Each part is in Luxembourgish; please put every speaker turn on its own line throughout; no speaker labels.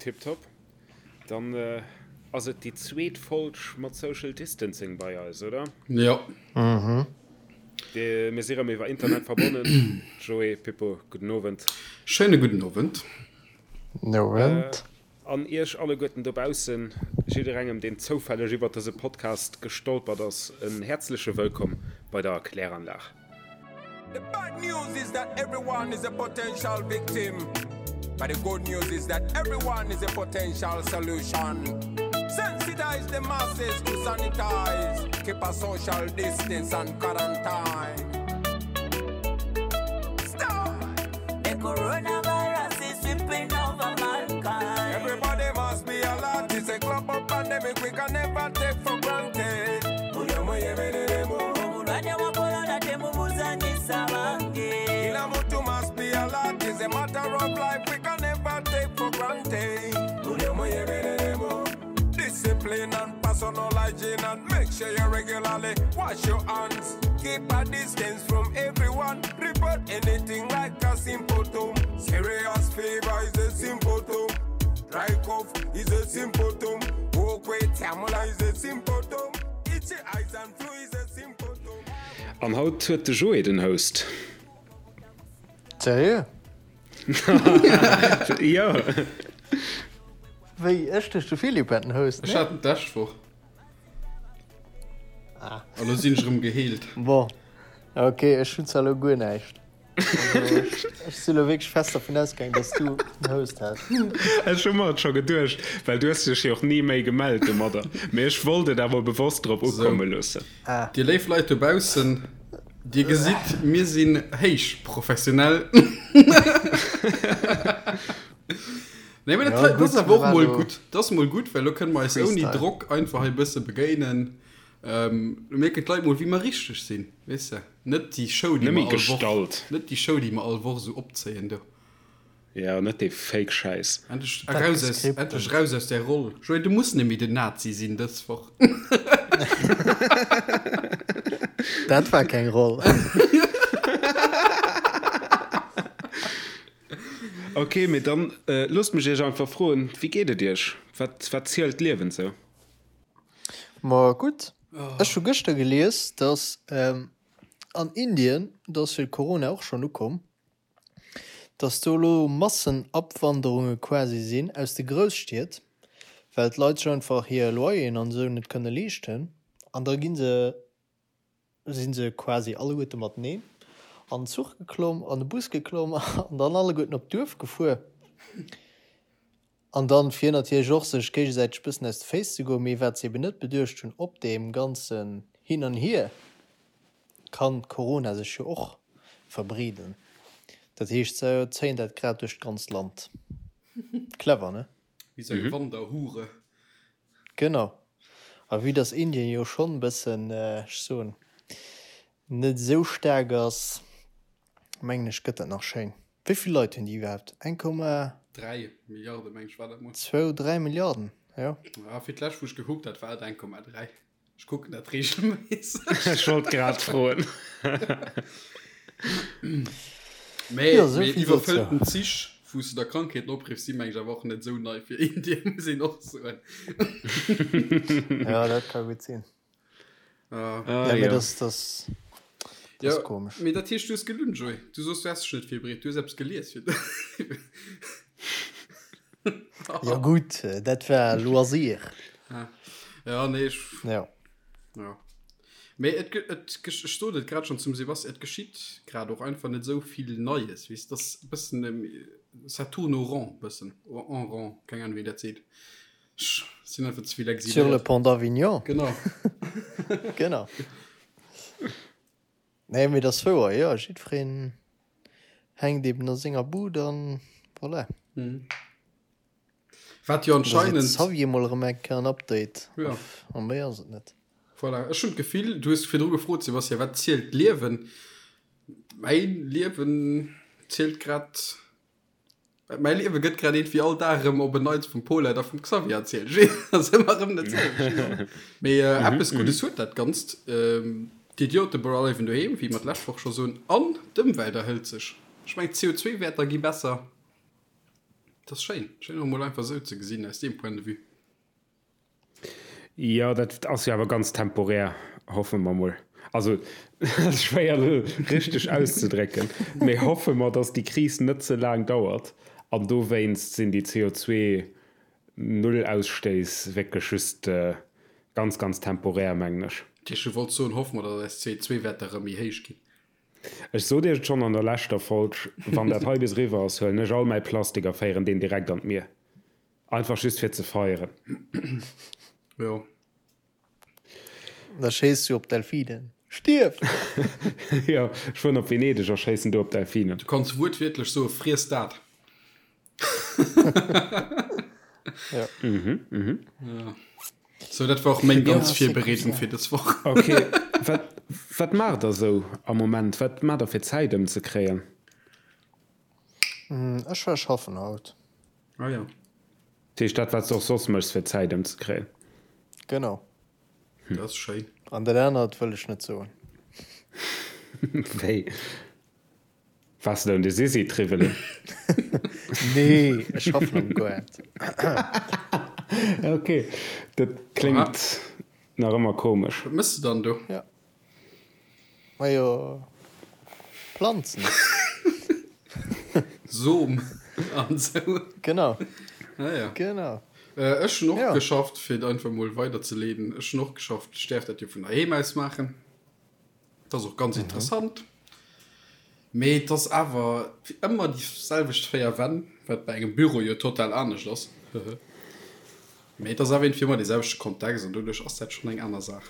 Tiptop. Dann ass et déi zweet Folg mat Social Distancing bei eis, oder?
Jo.
Mhm. Mir si rëm iwwer Internet verbonnen. Joé, Pippo, gudden Owend.
Schéine gudden Owend.
Owend.
An iech alleguerten dobaussen, jidderengem deen zoufälleg iwwert dëse Podcast gestolpert ass, en häerzleche Wëllkomm bei der Kläranlag.
The bad news is that everyone is a potential victim but the good news is that everyone is a potential solution. Sensitize the masses to sanitize, keep a social distance and quarantine. Stop!
The coronavirus is sweeping over mankind.
Everybody must be alert. It's a global pandemic we can never take for granted.
Obulwadde bwa corona temubuzanyisa bange.
Kila mtu must be alert. It's a matter of life we can never take for granted. Discipline and personal hygiene and make sure you regularly wash your hands. Keep a distance from everyone. Report anything like a symptom. Serious fever is a symptom. Dry cough is a symptom. Walk with tamula is a symptom. Itchy eyes and flu is a symptom.
An haut huet de Joé den Host.
Seriö?
Jo.
Wéi, ech duecht de Philippe hätt den Host,
Ech hat en d'lescht Woch.
Ah.
An lo sinn ech erëm geheelt.
Bon, ok, ech hunn zwar elo guer näischt. Also, ech, ech si lo wierklech fest dervun ausgaangen, dass du den Host häss.
Ech hu mer et scho geduecht, well du hues dech jo och ni méi gemellt domadder. Mee ech wollt et awer bewosst drop ukomme loossen.
Ah.
Dir léif Leit dobaussen, dir gesitt, mir sinn héich professionell. Nee, mee dat
Ja,
dat ass
gutt,
awer och
mir
mol
waren
gutt. Dat ass mol gutt, well lo kënne mer eis ouni
Freestyle.
Drock einfach hei e bësse begéinen. Ähm, lo mierken d'Leit mol, wéi mer richteg sinn, weess de. Net déi Show, déi
Net méi
mer all Woch,
gestallt.
net déi Show, déi mer all Woch esou opzéien do.
Ja, net dee Fake-Schäiss.
Endlech
Dat
eraus aus,
gescriptent.
endlech raus aus där Roll. Joé, du muss net méi den Nazi sinn dës Woch.
Dat war keng Roll.
Ok, mee dann loosst mech iech einfach froen, wéi geet et iech? Wat, wat zielt d'Liewen sou?
Ma gutt, ech hu gëschter gelies, dass an Indien, do ass jo Corona och schonn ukomm, dass do elo Massenabwanderunge quasi sinn aus de Grousstied, well d'Leit sech einfach hir Loyeren an esou net kënne leeschten an da gi se si se quasi alleguerte mateneen an den Zuch geklomm, an de Bus geklomm an dann alleguerten op d'Duerf gefuer. An dann, fir natierlech och sech géigesäiteg bëssen aus de Féiss ze goen, mee wat se eben net beduecht hunn, op deem ganzen Hin an Hier kann Corona sech jo och verbreeden. Dat heescht, se zéien dat grad duerch d'ganzt Land. Clever, ne?
Wéi sou eng Wanderhure.
Genau. A vue dass Indien jo schonn e bëssen, ech soen, net esou staark ass, mengen ech, gëtt dat nach schéin. Wéi vill Leit hunn déi iwwerhaapt? Eng Komma.
3 Milliarde meng ech war dat mol.
Zwou, 3 Milliarden, jo.
Ah, fir d'lescht wou ech gekuckt hat, war et 1,3. Ech kucken dat regelméisseg.
Ech wollt grad froen.
Mee,
Jo, sou
mee
vill
iwwerfëllten
dozou.
Zich, wou s de der Krankheeten opriffs, si meng ech awer och net esou nei fir Indien, muss een och soen.
Ja, dat ka gutt sinn.
Ah.
Ah,
Ja, mee
jo.
dat, dat, dat
Ja,
ass komesch.
mee dat heescht, du hues gelunn, Joé. Du soos, du häss dech net virbereet. Du hues eppes gelies fir.
Jo gutt, dat war Loisir.
Ah. Ja, nee, ech.
Ja.
Ja. Mee et, et, ech sot et grad schon zum Sebastian, et geschitt grad och einfach net esou vill Neies, weess, et ass e bëssen, ça tourne au rond, bëssen, en rond, keng Ahnung, wéi een dat seet. Ech sinn einfach ze vill
Sur le
exiléiert.
pont d'Avignon.
Genau.
Genau. Nee, mee dat ass wouer, jo, jiddwereen hänkt eben a senger Bud an voilà.
Mhm. Wat jo anscheinend.
Xavier mol erëm eng Kéier en Update.
Ja.
A méi ass et net.
Voilà, ech hunn d'Gefill, du hues virdru gefrot, Sebastian, wat zielt d'Liewen? Mäin Liewen zielt grad, mäi Liewe gëtt grad iergendwéi all Dag erëm op en Neits vum Paulette a vum Xavier erzielt. Ech weess, ass ëmmer erëm dat selwecht. Mee eppes Guddes huet dat Ganzt, D'Idiote bleiwen doheem, wéi mer d'lescht Woch scho soen, an d'Ëmwelt erhëlt sech. Ech mengen, d'CO2-Wäerter gi besser. Dat ass schéin, schéin och emol einfach esou ze gesinn aus deem Point de vue.
Jo, dat ass jo awer ganz temporär, hoffe mer mol. Also, dat ass schwéier elo richteg auszedrécken, mee hoffe mer, datt déi Kris net ze laang dauert an dowéinst sinn déi CO2-Null-Ausstéiss wierklech just ganz, ganz temporär, mengen ech.
Ech wollt soen, hoffe mer, datt eis CO2-Wäerter erëm méi héich ginn.
Ech sot iech et schonn an der leschter Folg, wann dat hei bis eriwwer ass, huelen ech all mäi Plastik a féieren deen direkt an d'Mier. Einfach just fir ze feieren.
Jo.
Da schéiss du op Delfinen. Stierf!
Jo, ech fueren op Venedeg a schéissen do op Delfinen.
Du kanns wuertwiertlech soe friess dat.
Ja.
Mhm, mhm.
Ja. So, dat war och meng ganz Virbereedung fir dës Woch.
Ok, wat, wat maacht der sou am Moment? Wat maacht der fir Zäit ëmzekréien?
Ech war schaffen haut.
Ah ja.
Dat heescht dat, wat s de och soss méchs fir Zäit ëmzekréien?
Genau.
Dat ass schéin.
An dat anert wëll ech net soen.
Wéi? Waars de un de Sisi triwwelen?
Nee, ech schaffen am Goart.
Ok, dat kléngt nach ëmmer komesch.
Wat mëss de dann do?
Ja. Majo, Planzen.
Som an sou.
Genau.
Ah ja.
Genau.
Ech hunn och geschafft, fir et einfach mol weiderzeleeden, ech hunn och geschafft, ech däerf dat jo vun heiheem aus maachen. Dat ass och ganz interessant. Mee et ass awer ëmmer déi selwecht 4 Wänn, wat bei engem Büro jo total anescht ass. Mee et ass awer iergendwéi ëmmer dee selwechte Kontext an doduerch ass dat schonn eng aner Saach.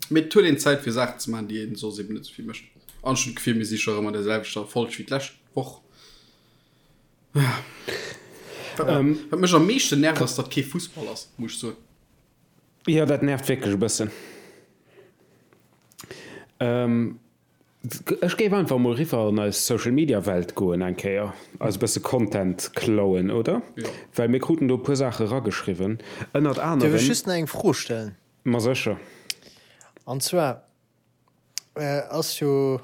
Mee et huet een Zäit fir Saachen ze maachen, déi een soss eben net esou vill mécht. An ech hunn d'Gefill, mir si scho rëm an der selwechter Folg wéi d'lescht Woch. Wat mech am meeschten nervt, ass, datt kee Fussball ass, muss ech soen.
Jo, dat nervt wierklech e bëssen. Ech géif einfach mol riwwer an eis Social Media Welt goen eng Kéier, eis e bësse Content klauen, oder?
Jo.
Well mir kruten do e puer Saache rageschriwwen, ënnert anerem.
Dierf ech just nach eng Fro stellen?
Ma sécher.
An zwar ass jo,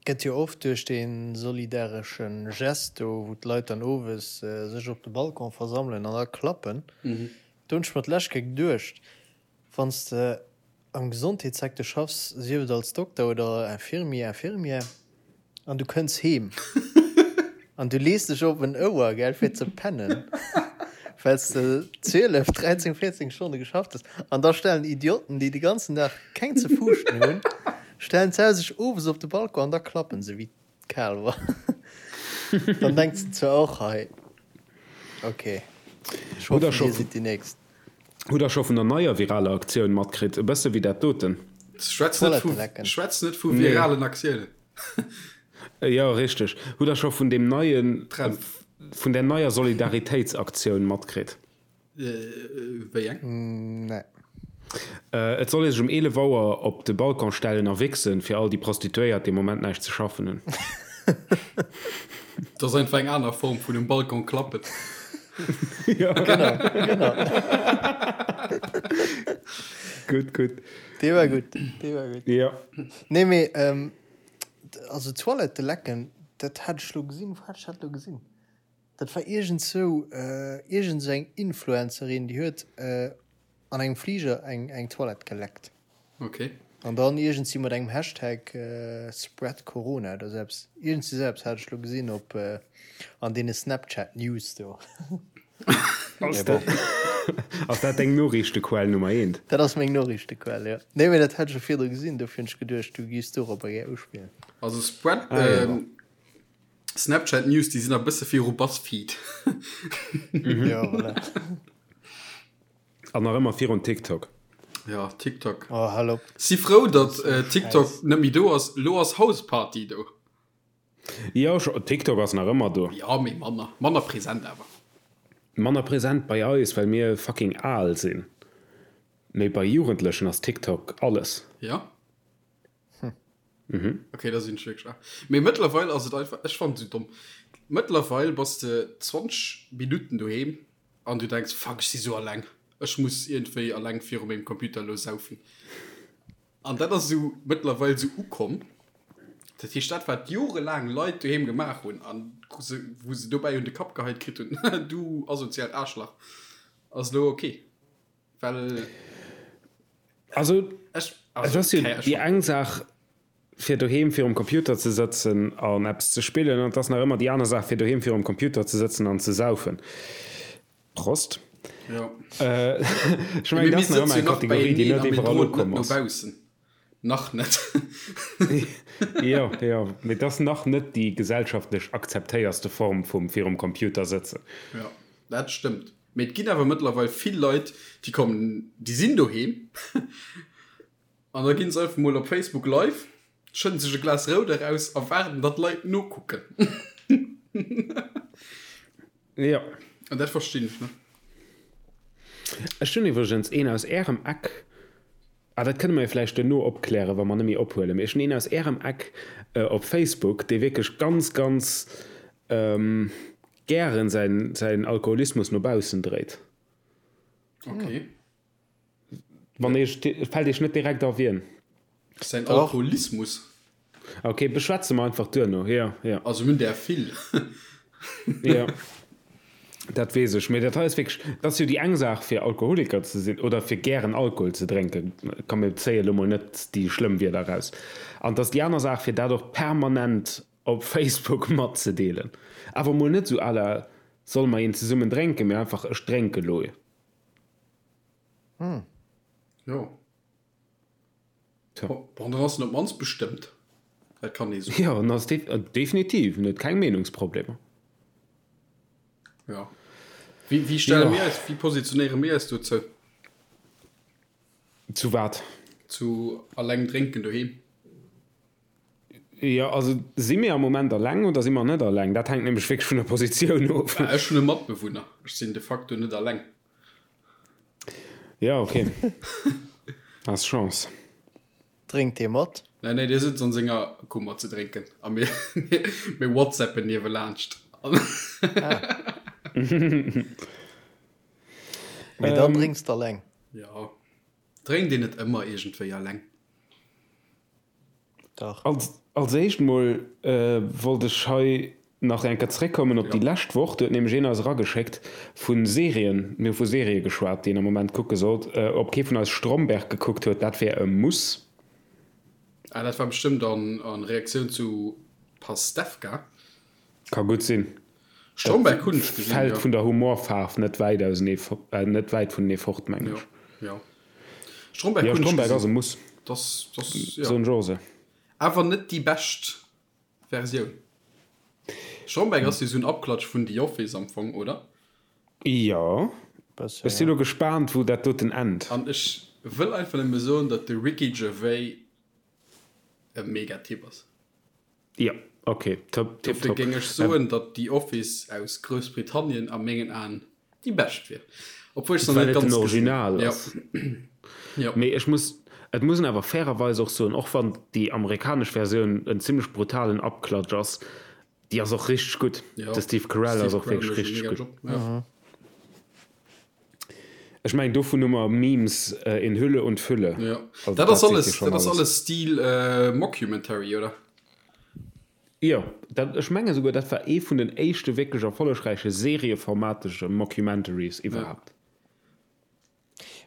gëtt jo oft duerch dee solidaresche Gest do, wou d'Leit dann owes sech op de Balcon versammelen an da klappen, do hunn ech mer d'lescht Kéier geduecht, wann s de am Gesondheetssecteur schaffs, sief et als Dokter oder Infirmier, Infirmière, an du kënns heem an du lees dech op en Ouer, gell, fir ze pennen, well s de 12, 13, 14 Stonne geschafft hues, an da stellen Idioten, déi de ganzen Dag keng ze fuuschten hunn, stellen se sech owes op de Balcon an da klappen se wéi d'Kaalwer. Dann denks de zwar och, hei, okay, ech hoffen, dir sidd déi Nächst.
Hutt der scho vun der neier viraler Aktioun matkritt? E bësse wéi dat doten.
Schwätz net vu, schwätz net vu viralen Aktiounen.
Jo, richteg. Hutt der scho vun deem neien, Trend, vun där neier Solidaritéitsaktioun matkritt?
Wéi eng?
Nee.
Et soll ee sech um 11 Auer op de Balcon stellen a wichsen, fir all déi Prostituéiert, déi am Moment näischt ze schaffen hunn.
Dat ass einfach eng aner Form vun um Balcon klappen.
Ja.
Genau, genau.
Gutt, gutt.
Dee war gutt, dee war gutt.
Ja.
Nee, mee, ähm, also Toilette lecken, dat hat ech lo gesinn, wou hat ech dat lo gesinn? Dat war iergendsou, iergend sou eng Influencerin, déi huet an engem Fliger eng, eng Toilette geleckt.
Ok.
An dann iergendsi mat engem Hashtag Spread Corona oder sou eppes. Iergendsi sou eppes hat ech lo gesinn op an deene Snapchat News do.
Ass dat, ass dat deng Noriichtequell Nummer eent?
Dat ass meng Noriichtequell, jo. Nee, mee dat hat ech jo virdru gesinn, dofir hunn ech geduecht, du giffs dorobber gär uspillen.
Also Spread,
Ah, jo.
Snapchat News, déi sinn a bësse viru Buzzfeed.
Jo, voilà.
An nach ëmmer virun TikTok.
Ja, TikTok.
Oh, hal op.
Si frou, datt äh, TikTok net méi do ass. Lo ass Houseparty do.
Jo, TikTok ass nach ëmmer do.
Ja, mee manner. Manner present awer.
Manner present bei eis, well mir fucking al sinn. Mee bei Jugendlechen ass TikTok alles.
Ja? Hm. Okay, da sinn ech wierklech al. Mee mëttlerweil ass et einfach, ech fannen et esou domm. Mëttlerweil bass de 20 Minutten doheem An du denks, fuck, ech si sou alleng, ech muss iergendwéi alleng viru mengem Computer elo saufen. An dat ass esou mëttlerweil esou ukomm. Dat heescht, dat wat jorelaang Leit doheem gemaach hunn an wou se dobäi un de Kapp geheit kritt hunn, du asoziaalt Aarschlach, ass elo ok. Well
Also, ech, also, et ass jo déi eng Saach, fir doheem virum Computer ze sëtzen an eppes ze spillen, an et ass nach ëmmer déi aner Saach, fir doheem virum Computer ze sëtzen an ze saufen. Prost.
Jo.
Ech mengen, dat ass nach ëmmer eng Kategorie, déi net iwwerall ukomm ass.
Nach net.
Jo, jo, mee et ass nach net déi gesellschaftlech akzeptéierste Form vum virum Computer sëtzen.
Jo, dat stëmmt. Mee et ginn awer mëttlerweil vill Leit, déi kommen, déi sinn doheem an da ginn se einfach mol op Facebook live, schëdden sech e Glas Rout eraus a waarden, datt Leit nokucken.
Jo.
An dat verstinn ech net.
Ech hunn iwwregens een aus Ärem Eck, ah dat kënne mer jo vläicht duerno opklären, wa mer net méi ophuelen, mee ech hunn een aus Ärem Eck op Facebook, dee wierklech ganz, ganz gären säin, säin Alkoholismus no baussen dréit.
Okay.
Wann Iech, fält Iech net direkt a wien?
Säin Alkoholismus?
Okay, beschwätze mer einfach duerno, jo, jo.
Also mir hunn där vill.
Jo, dat weess ech. Mee dat hei ass wierklech, dat ass jo déi eng Saach fir Alkoholiker ze sinn oder fir gären Alkohol ze drénken, komm mir zéie lo mol net déi schlëmm Wierder eraus, an et ass déi aner Saach fir dat och permanent op Facebook matzedeelen. Awer mol net esou à la solle mer een zesummen drénken, mee einfach ech drénke lo.
Hm. Jo. Tja. Bon, dann ass en op d'mannst bestëmmt. Dat kann ee soen.
Jo, en ass definitiv, en huet keng Meenungsproblemer.
Ja. Wéi, wéi stelle mir eis, wéi positionéiere mir eis dozou?
Zu wat?
Zu alleng drénken doheem.
Jo, also si mir am Moment alleng oder si mer net alleng? Dat hänkt nämlech wierklech vun der Positioun of.
Ech hunn e Matbewunner. Ech sinn de facto net alleng.
Ja, okay. Has Chance.
Drénkt dee mat?
Nee, nee, dee sëtzt an senger Kummer ze drénken a mir, mir whatsappen niewelaanscht.
Ah. Mee dann drénks de alleng?
Jo. Drénkt een net ëmmer iergendwéi alleng?
Dach.
Als, als éischt mol wollt ech hei nach eng Kéier zréckkommen op déi lescht Woch. Do huet nämlech een eis erageschéckt vu Serien, mir hu vu Serië geschwat, déi een am Moment kucke sollt, ob kee vun eis Stromberg gekuckt huet. Dat wär e Muss.
Ah, dat war bestëmmt an, an Reaktioun zu Pastewka.
Ka gutt sinn.
Stromberg hunn ech
gesinn, jo. Fält vun der Humorfaarf net wäit ausenee, net wäit vunenee fort, mengen ech.
Jo, jo. Stromberg
hunn ech gesinn. Jo,
Stromberg
ass e Muss.
Das, das,
jo. Soen ech och esou.
Awer net déi bescht Versioun. Stromberg ass jo esou en Abklatsch vun The Office am Fong, oder?
Jo. Ech sinn elo gespaant, wou dat doten ennt.
An ech wëll einfach nëmme soen, datt de Ricky Gervais e mega Typ ass.
Jo, ok, top,
tip Dofir géing ech soen, datt The Office aus Groussbritannien a mengen Aen déi bescht wier. Obwuel ech se nach
net
ganz
gesinn hunn. Well et den Original ass.
Jo.
Mee ech muss, et muss een awer fairerweis och soen, och wann déi amerikanesch Versioun en zimlech brutalen Abklatsch ass, déi ass och richteg gutt.
Jo,
De Steve Carell ass
Steve
och
Carell
wierklech
mécht e
richteg
mega
gutt.
Job, jo.
Ech mengen, dovun hu mer Memes in Hülle und Fülle.
Jo,
Also
dat
dat
ass
seet jo
alles,
schonn
dat ass
alles.
alles Stil Mockumentary, oder?
Jo, dat, ech menge souguer, dat war ee vun den éischte wierklech erfollegräiche serieformatege Mockumentaries iwwerhaapt.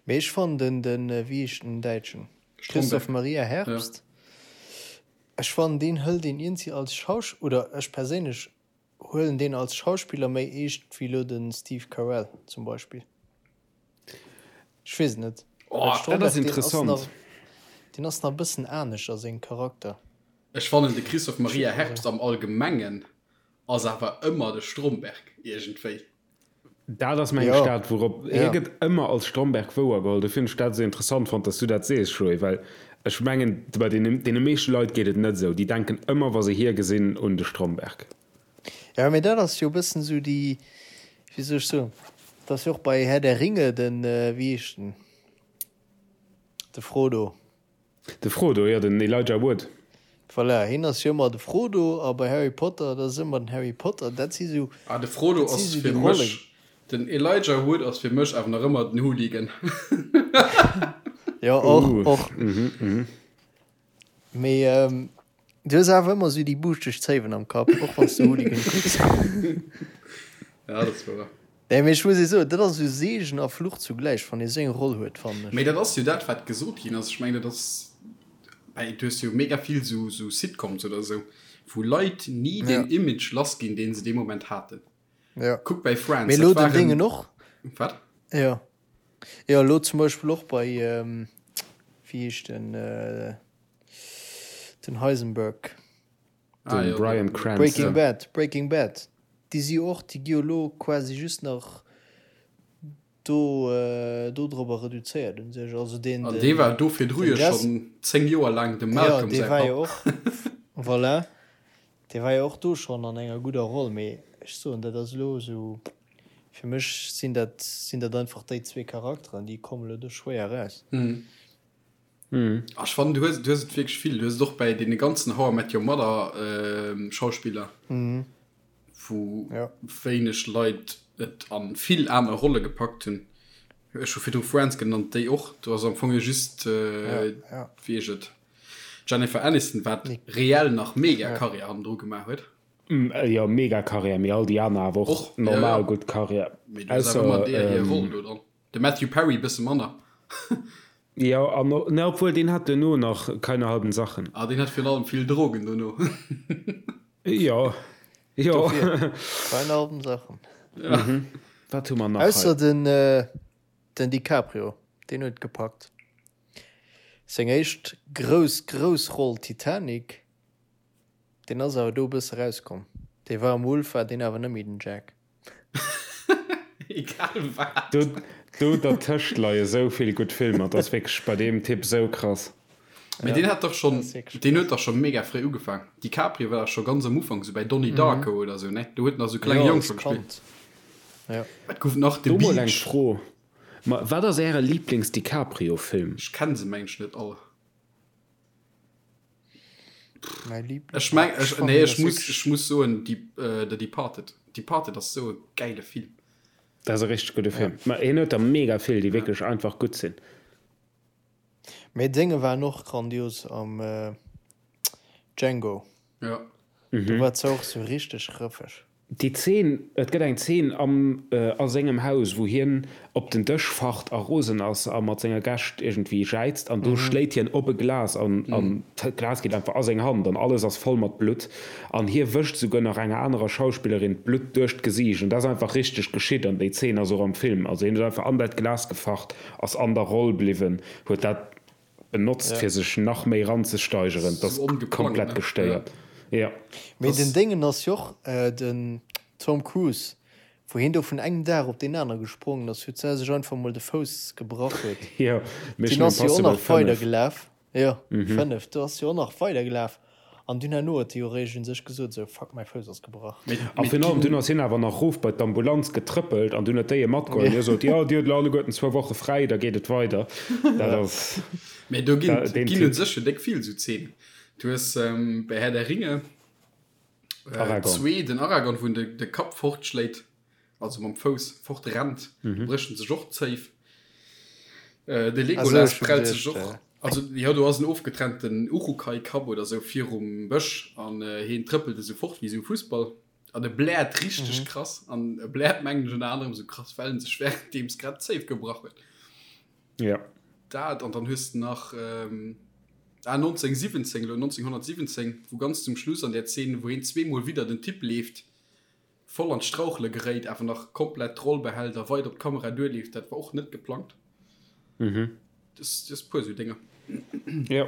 Mee ech fannen den, den, wéi heescht den Däitschen? Christoph Maria Herbst. Ech fannen deen hëlt een iergendwéi als Schausch, oder ech perséinlech Huelen deen als Schauspiller méi eescht wéi lo den Steve Carell zum Beispill. Ech weess et net.
Oh, dat ass interessant.
Deen ass nach e bëssen anescht a sengem Charakter.
Ech fannen de Christoph Maria Herbst am Allgemengen ass awer ëmmer de Stromberg iergendwéi.
Dat ass mengen ech dat, wourop hie gëtt ëmmer als Stromberg wouergeholl. Dofir hunn ech dat esou interessant fonnt, datt s du dat sees, Joé, well ech mengen, bei deene meeschte Leit geet et net esou. Déi denken ëmmer, wa se hie gesinn, un de Stromberg.
Jo, mee dat ass jo e bëssen esou déi, wéi soll ech soen, dat ass jo och bei Herr der Ringe den, wéi heescht en, de Frodo.
De Frodo, jo, den Elijah Wood.
Voilà, hien ass jo ëmmer de Frodo a bei Harry Potter, dat ass ëmmer den Harry Potter. Dat si sou,
Ah, de Frodo
dat si
ass
sou
fir
déi
mech,
Rollen.
den Elijah Wood ass fir mech awer nach ëmmer den Hooligan.
Jo, och,
Uh,
och.
mhm, mhm.
Mee. Du hues awer ëmmer esou déi buuschteg Zéiwen am Kapp, och wann s de Hooligan kucks.
Ja, dat ass wouer.
Nee, mee ech muss ee soen, dat ass esou Seegen a Fluch zugläich, wann ee sou eng Roll huet, fannen ech.
Mee dat ass jo dat, wat gesot ginn ass. Ech mengen, dat ass bäi, du hues jo mega vill sou, sou Sitcoms oder sou, wou Leit ni deen Image lass ginn, deen se dee Moment haten.
Ja.
Kuck bäi Friends,
Mee
dat
elo den
waren.
Déngen och.
Wat?
Jo. Jo, elo zum Beispill och bei, wéi heescht den, den Heisenberg.
Ah,
Den
jo,
Bryan
den.
Cranston.
Breaking Bad, Breaking Bad. Déi si jo och, déi gi jo elo quasi just nach do, dodrobber reduzéiert un sech. Also deen,
An dee
den,
war do virdru
den
jo
Jess.
schonn 10 Joer laang dem
Jo,
Malcolm
dee
säi
war jo
Papp.
och, voilà. Dee war jo och do schonn an enger gudder Roll, mee ech soen, dat ass elo esou, fir mech sinn dat, sinn dat einfach déi zwee Charakteren, déi kommen elo do schwéier eraus.
Ah, ech fannen, du hues, du hues et wierklech vill. Du hues et och bäi deene ganzen How I Met Your Mother Schauspiller, wou wéineg Leit et a vill aner Rolle gepackt hunn. Ech hu virdru Friends genannt, déi och. Do ass am Fong jo just, wéi heescht et, Jennifer Aniston, wat reell nach mega Karriär hannendru gemaach huet.
Jo, mega Karriär, mee all déi aner awer och normal gutt Karriär.
Mee du hues awer ëmmer deer hir Roll do dran. De Matthew Perry bësse manner.
Jo, an ne, obwuel deen hat duerno nach Keine halben Sachen.
Ah, deen hat virun allem vill Drogen dono.
Jo, jo.
Dofir, Keine halben Sachen.
Wat hu mer nach hei?
Ausser den, den DiCaprio, deen huet gepackt. Seng éischt grouss, grouss Roll Titanic, deen ass awer do e bësse rauskomm. Dee war am Wolf, war deen awer net méi den Jack.
Egal wat.
Do, do dertëscht leie sou vill gutt Filmer, dat ass wierklech bei deem Typ sou krass.
Mee deen hat dach schonn, deen huet dach scho mega fréi ugefaang. DiCaprio war dach scho ganz am Ufank, sou bäi Donnie Darko oder sou, ne? Do huet en nach sou klenge
Jo,
Jong
als
scho gespillt.
Kand. Ja.
Wat gouf nach? The
Do mol eng
Beach.
Fro, ma wat ass äre Lieblings-DiCaprio-Film?
Ech kenn se mengen ech net all.
Mäi Liebling.
Ech meng, ech,
fannen
nee, ech
das
muss,
wierklech-
ech muss soen, die, äh, The Departed. Departed ass sou e gäile Film.
Dat ass e richteg gudde Film. Ma hien huet der mega vill, déi wierklech einfach gutt sinn.
Mee Dénge waren och grandios am äh, Django.
Ja.
Do war se och sou richteg rëffeg.
Déi Zeen, et gëtt eng Zeen am, a sengem Haus, wou hien op den Dësch facht a rosen ass a mat senger Gäscht iergendwéi jäizt an do schléit hien op e Glas an an d'Glas geet einfach a seng Hand an alles ass voll mat Blutt an hie wëscht souguer nach enger anerer Schauspillerin d'Blutt duerch d'Gesiicht an dat ass einfach richteg geschitt an déi Zeen ass och am Film. Also hien huet einfach an dat Glas gefacht, ass an der Roll bliwwen, huet dat benotzt fir sech nach méi ranzesteigeren, dat ass komplett gestéiert. Jo.
Mee den Déngen ass jo och den Tom Cruise, wou hien do vun engem Dag op deen anere gesprongen ass, huet sech einfach mol de Fouss gebrach huet.
Jo,
Deen
Mission
ass jo och
Impossible
nach
5.
weider gelaf. Jo, 5, do ass jo och nach weider gelaf. An dunn herno huet de jo eréischt un sech gesot, esou, fuck, mäi Fouss ass gebrach.
A virun allem, dunn ass hien awer nach rof bei d'Ambulanz getrëppelt an dunn huet déi e matgeholl. Hie sot, jo, dir hutt elo alleguerten zwou Woche fräi, da geet et weider. Dat ass
Mee do ginn,
deen
ginn un
Typ.
sech jo déck vill esou Zeenen. Du hues bei Herr der Ringe
Aragorn.
zwee, den Aragorn, wou en de, de Kapp fortschléit, also mam Fouss fortrennt, do brécht en sech och d'Zéif. De Legolas prellt sech och, also jo, do ass en ofgetrennten Urukai-Kapp oder sou virum Bësch an hien trëppelt esou fort wéi esou e Fussball an e bläert richteg krass an e bläert mengen ech ënner anerem esou krass, well en sech wärenddeems grad d'Zéif gebrach huet.
Ja.
Dat an dann hues de nach ah 1917 elo 1917, wou ganz zum Schluss an där Zeen, wou hien zweemol widder den Typ leeft, voll an d'Strauchele geréit, awer nach komplett d'Roll behält a weider op d'Kamera duerleeft, dat war och net geplangt.
Mhm.
Das, das puer sou Dénger.
Ja.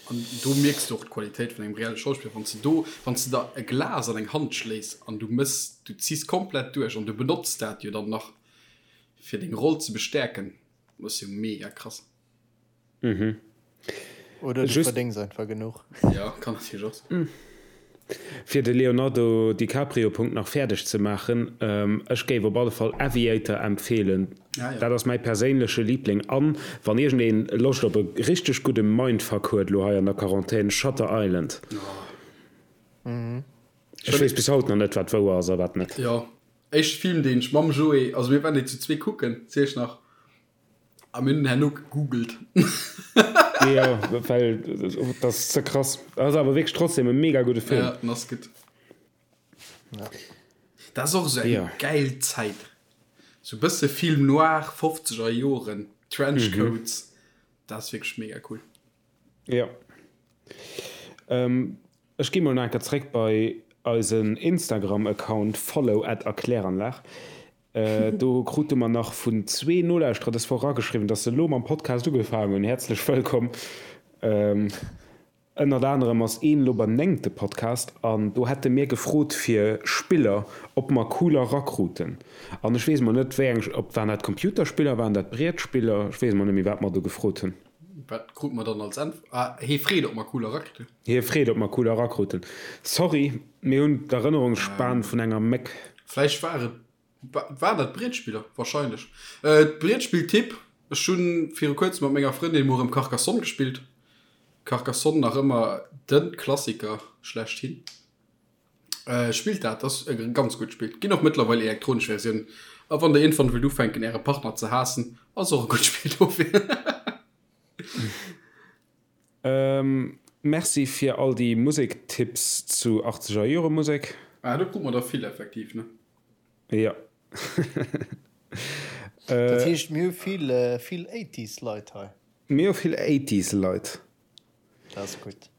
An do mierks du och d'Qualitéit vun engem reelle Schauspiller, wann s de do, wann s de der e Glas an eng Hand schléis an du mëss, du ziss komplett duerch an du benotz dat jo dann nach fir deng Roll ze bestäerken, dat ass jo mega krass.
Mhm.
Oder du
Just-
verdéngs einfach genuch.
Ja, kann natierlech och sinn.
Fir de Leonardo DiCaprio Punkt nach fäerdeg ze maachen, ech géif op alle Fall Aviator empfeelen.
Ah, ja.
Dat ass mäi perséinleche Liebling. An wann iergendeen Loscht op e richteg gudde Mindfuck huet elo hei an der Quarantän, Shutter Island. Ech weess bis haut nach net wat wouer ass a wat net.
Jo, éischte Film deen ech mam Joé, also mir waren déi zu zwee kucken, ziel ech nach, A mir hunn herno gegoogelt.
Jo, well dat ass ze krass. Ass awer wierklech trotzdem e mega gudde Film.
Ja, den ass gutt.
Ja.
Dat ass och esou eng
Ja.
gäil Zäit. Sou bësse Film noir, fofzeger Joren, Trenchcoats. Dat ass wierklech mega cool.
Jo. Ech gi mol nach eng Kéier zréck bei eisen Instagram-Account follow at erkläranlag. Do krute mer nach vun zwee Nolauschterer dës Woch erageschriwwen, dass se elo mam Podcast ugefaangen hunn. Häerzlech wëllkomm! Ënnert anerem ass een elo beim néngte Podcast an do hätte mir gefrot fir Spiller, ob mer cooler rakruten. An ech weess mol net, wéi eng, ob waren dat Computerspiller, waren dat Brietspiller, ech weess mol net méi, wat mer do gefrot hunn.
Wat krut mer dann als Äntwert? Ah, hee freet, ob mer cooler rakruten.
Hie freet, ob mer cooler rakruten. Sorry, mir hunn d'Erënnerungsspan vun enger Méck.
Vläicht war et, waren dat Brietspiller? Wahrscheinlech. Brietspill-Tipp, Ech hu viru kuerzem mat menger Frëndin mol erëm Carcassonne gespillt. Carcassonne nach ëmmer de Klassiker schlechthin. Spillt dat, ass e ganz gutt Spill. Ginn och mëttlerweil elektronesch Versiounen. A wann der iergendwann wëllt ufänken äre Partner ze haassen, ass och e gutt Spill dofir.
Merci fir all déi Musektipps zu 80er Jore Musek.
Ah, do krut mer der vill effektiv, ne?
Jo.
Dat heescht mir hu vill vill Eighties Leit hei.
Mir hu vill Eighties Leit.
Dat ass gutt.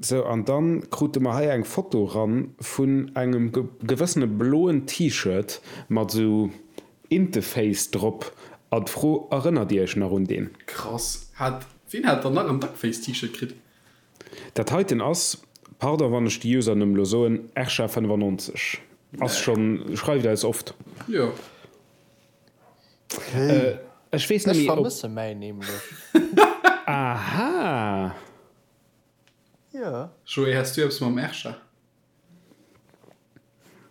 Sou, an dann krute mer hei eng Foto ran vun engem gewëssene bloen T-Shirt mat sou Inteface drop an d'Fro, Erënnert dir iech nach un deen?
Krass, hat, ween hat dann nach en Duckface T-Shirt kritt?
Dat heiten ass, pardon wann ech de Usernumm lo soen, Ersha95 ass schon, schreift eis oft.
Jo.
Ech weess net
Ech
méi ob.
vermësse mäin nämlech.
Aha!
Jo.
Joé, has du eppes mam Ersha?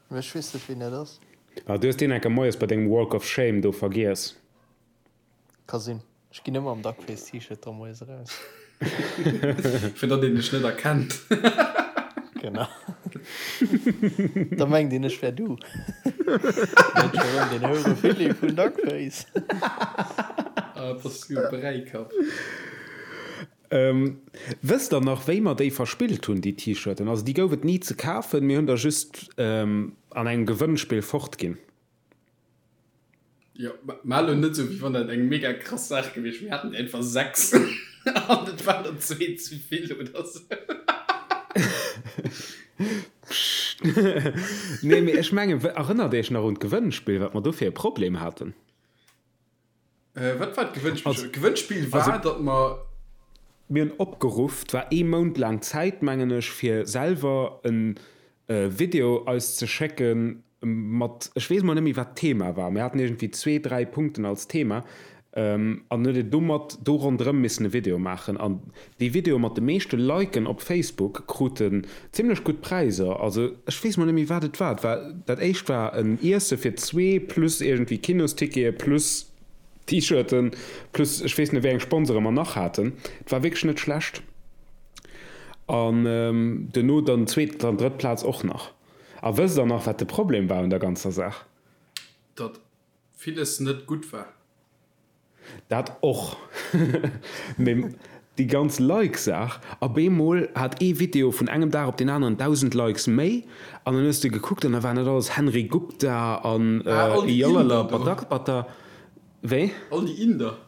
Mee ech weess net wien dat ass.
Ah, du hues deen enker moies bei dengem Walk of Shame do vergiess.
Ka sinn. Ech ginn ëmmer am Duckface T-Shirt da moies eraus.
Fir datt een dech net erkennt.
Genau. Da mengt een ech wär du. Net scho rëm den Houre Philippe vun Duckface.
Ah, bass du e Bräikapp.
Wësst der nach wéi mer déi verspillt hunn, déi T-Shirten? Also déi gouf et ni ze kafen, mir hunn der just an engem Gewënnspill fortginn.
Jo, ma elo net esou wéi wann dat eng mega krass Saach gewiescht wier. Mir haten einfach 6 an et waren der zwee ze vill oder sou.
Pscht. Nee, mee ech mengen, erënnert Iech nach un d'Gewënnspill, wat mer do fir e Problem haten?
Wat war d'Gewënnspill? D'Gewënnspill war, datt mer.
Mir hunn opgeruff, 't war ee Mount laang Zäit, mengen ech, fir selwer e Video eis ze schécke mat, ech weess mol net méi, wat d'Thema war, mir haten iergendwéi zwee, dräi Punkten als Thema an dann huet een domat, do ronderëm missen e Video maachen. An déi Videoe mat de meeschte Liken op Facebook kruten zimmlech gutt Präiser. Also ech weess mol net méi, wat et war. Et war, dat éischt war en Iesse fir zwee plus iergendwéi Kinostickete plus T-Shirten plus ech weess net wéi eng Sponsore mer nach haten. Et war wierklech net schlecht. An duerno dann zweet an drëtt Plaz och nach. A wësst der nach wat de Problem war un der ganzer Saach?
Datt villes net gutt war.
Dat och. Mee déi ganz Like-Saach, op eemol hat ee Video vun engem Dag op deen aneren 1.000 Likes méi an dann hues de gekuckt an da waren dat alles Henry Gupta an Jalala Badakbata. Wéi?
All déi Inder.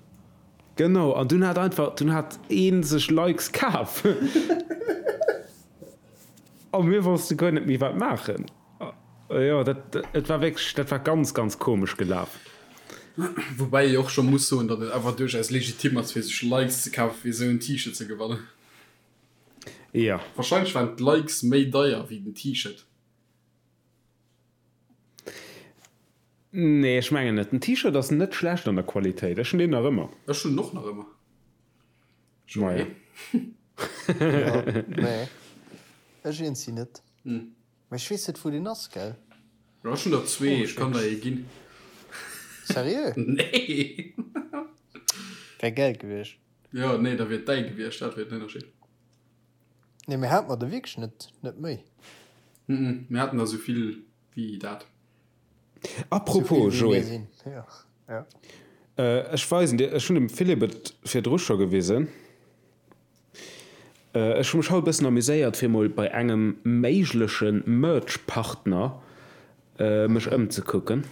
Genau, an dunn hat einfach, dunn hat ee sech Likes kaf. A mir wosste guer net méi wat maachen. Jo, dat, et war wierklech, dat war ganz, ganz komesch gelaf.
Woubäi ee och scho muss soen, datt et awer duerchaus legitim ass, fir sech Likes ze kafen, fir esou en T-Shirt ze gewannen.
Jo.
Wahrscheinlech waren d'Likes méi deier wéi den T-Shirt.
Nee, ech mengen net. Den T-Shirt ass net schlecht an der Qualitéit. Ech hunn deen nach ëmmer.
Ech hunn en och nach ëmmer.
Maja.
Jo, nee, ech eens si net. Mee ech weess net wou deen ass, gell?
Jo, ech hunn der zwee, ech kann der ee ginn.
Seriö?
Nee!
Wär gäil gewiescht.
Jo, nee, da wier et däi gewiescht, dat wier den Ënnerscheed.
Nee, mir hate mer der wierklech net, net méi.
Mhm, mir haten der sou vill wéi dat.
Apropos,
Sou vill wéi
Joé.
mir sinn, jo. Ja.
Ech weisen dir, ech hunn dem Philippe et virdru scho gewisen. Ech hu mech haut e bëssen amuséiert fir mol bei engem méigleche Merch-Partner mech ëmzekucken.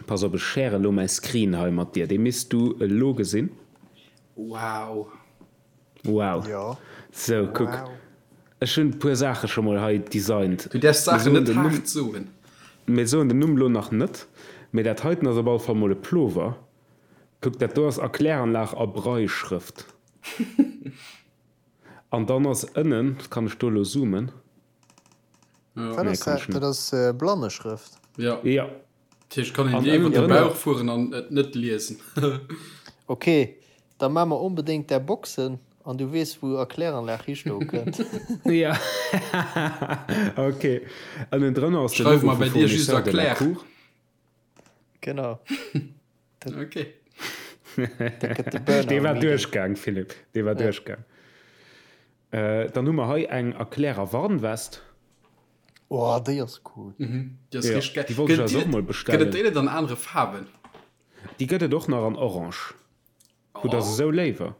Pass op, ech share elo mäi Screen hei mat dir, dee misst du elo gesinn.
Wow.
Wow.
Jo.
Sou, kuck, ech hunn e puer Saache scho mol hei designt.
Du däerfs Saachen net haart soen.
Mir soen den Numm elo nach net, mee dat heiten ass op alle Fall mol e Plover. Kuck, dat do ass Erkläranlag a Brailleschrëft. An dann ass ënnen, kann ech do elo zoomen?
Wat
Nee,
ass
kann ech
dat?
net.
Dat ass Blanneschrëft.
Ja.
Ja.
Dat heescht, kann een
An
dir iwwer
ënnen
de
drënner.
Bauch fueren an et net liesen.
Ok, da maa mer onbedéngt där Boxen an du weess wou Erkläranlag histoe kënnt.
Ja, ok. Ënnen drënner ass de
Schreif
Logo
mer
vu
bei dir just
Fournisseur de la
Erklär.
Cour.
Genau.
Ok.
Da gëtt de Burner
Dee war
meeting.
duerchgaang, Philippe. Dee war
Ja.
duerchgaang. Äh, dann hu mer hei eng Erklärer Warnwest.
Oh, déi ass cool.
Mhm. Déi ass
Ja,
richteg geil.
déi wollt ech
Gëtt
eis
déi
och mol
net, gëtt et
bestellen.
déi net an anere Faarwen?
Déi gëtt et och nach an Orange. Hutt der se
Oh.
esou léiwer?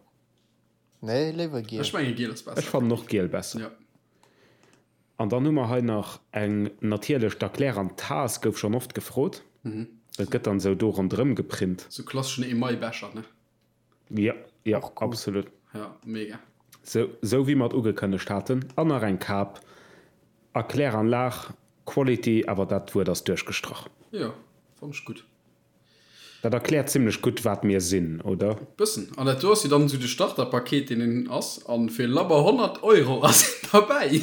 Nee, léiwer giel.
Ech menge giel ass
Ech
besser.
fannen och giel besser.
Ja.
An dann hu mer hei nach eng, natierlech d'Erklär an d'Taass gouf schonn oft gefrot. Dat gëtt dann esou do ronderëm geprint.
Sou klasseschen Emailbecher, ne?
Jo, jo,
Och cool.
absolut.
Ja, mega.
Sou, sou wéi mer et ugekënnegt haten. An nach eng Kap. Erkläranlag, Quality, awer dat Wuert ass duerchgestrach.
Jo, fann ech gutt.
Dat erkläert zimlech gutt, wat mir sinn, oder?
Bëssen. An dat do ass jo dann esou de Starterpaket, deen een ass. An fir labber 100 Euro ass een derbäi.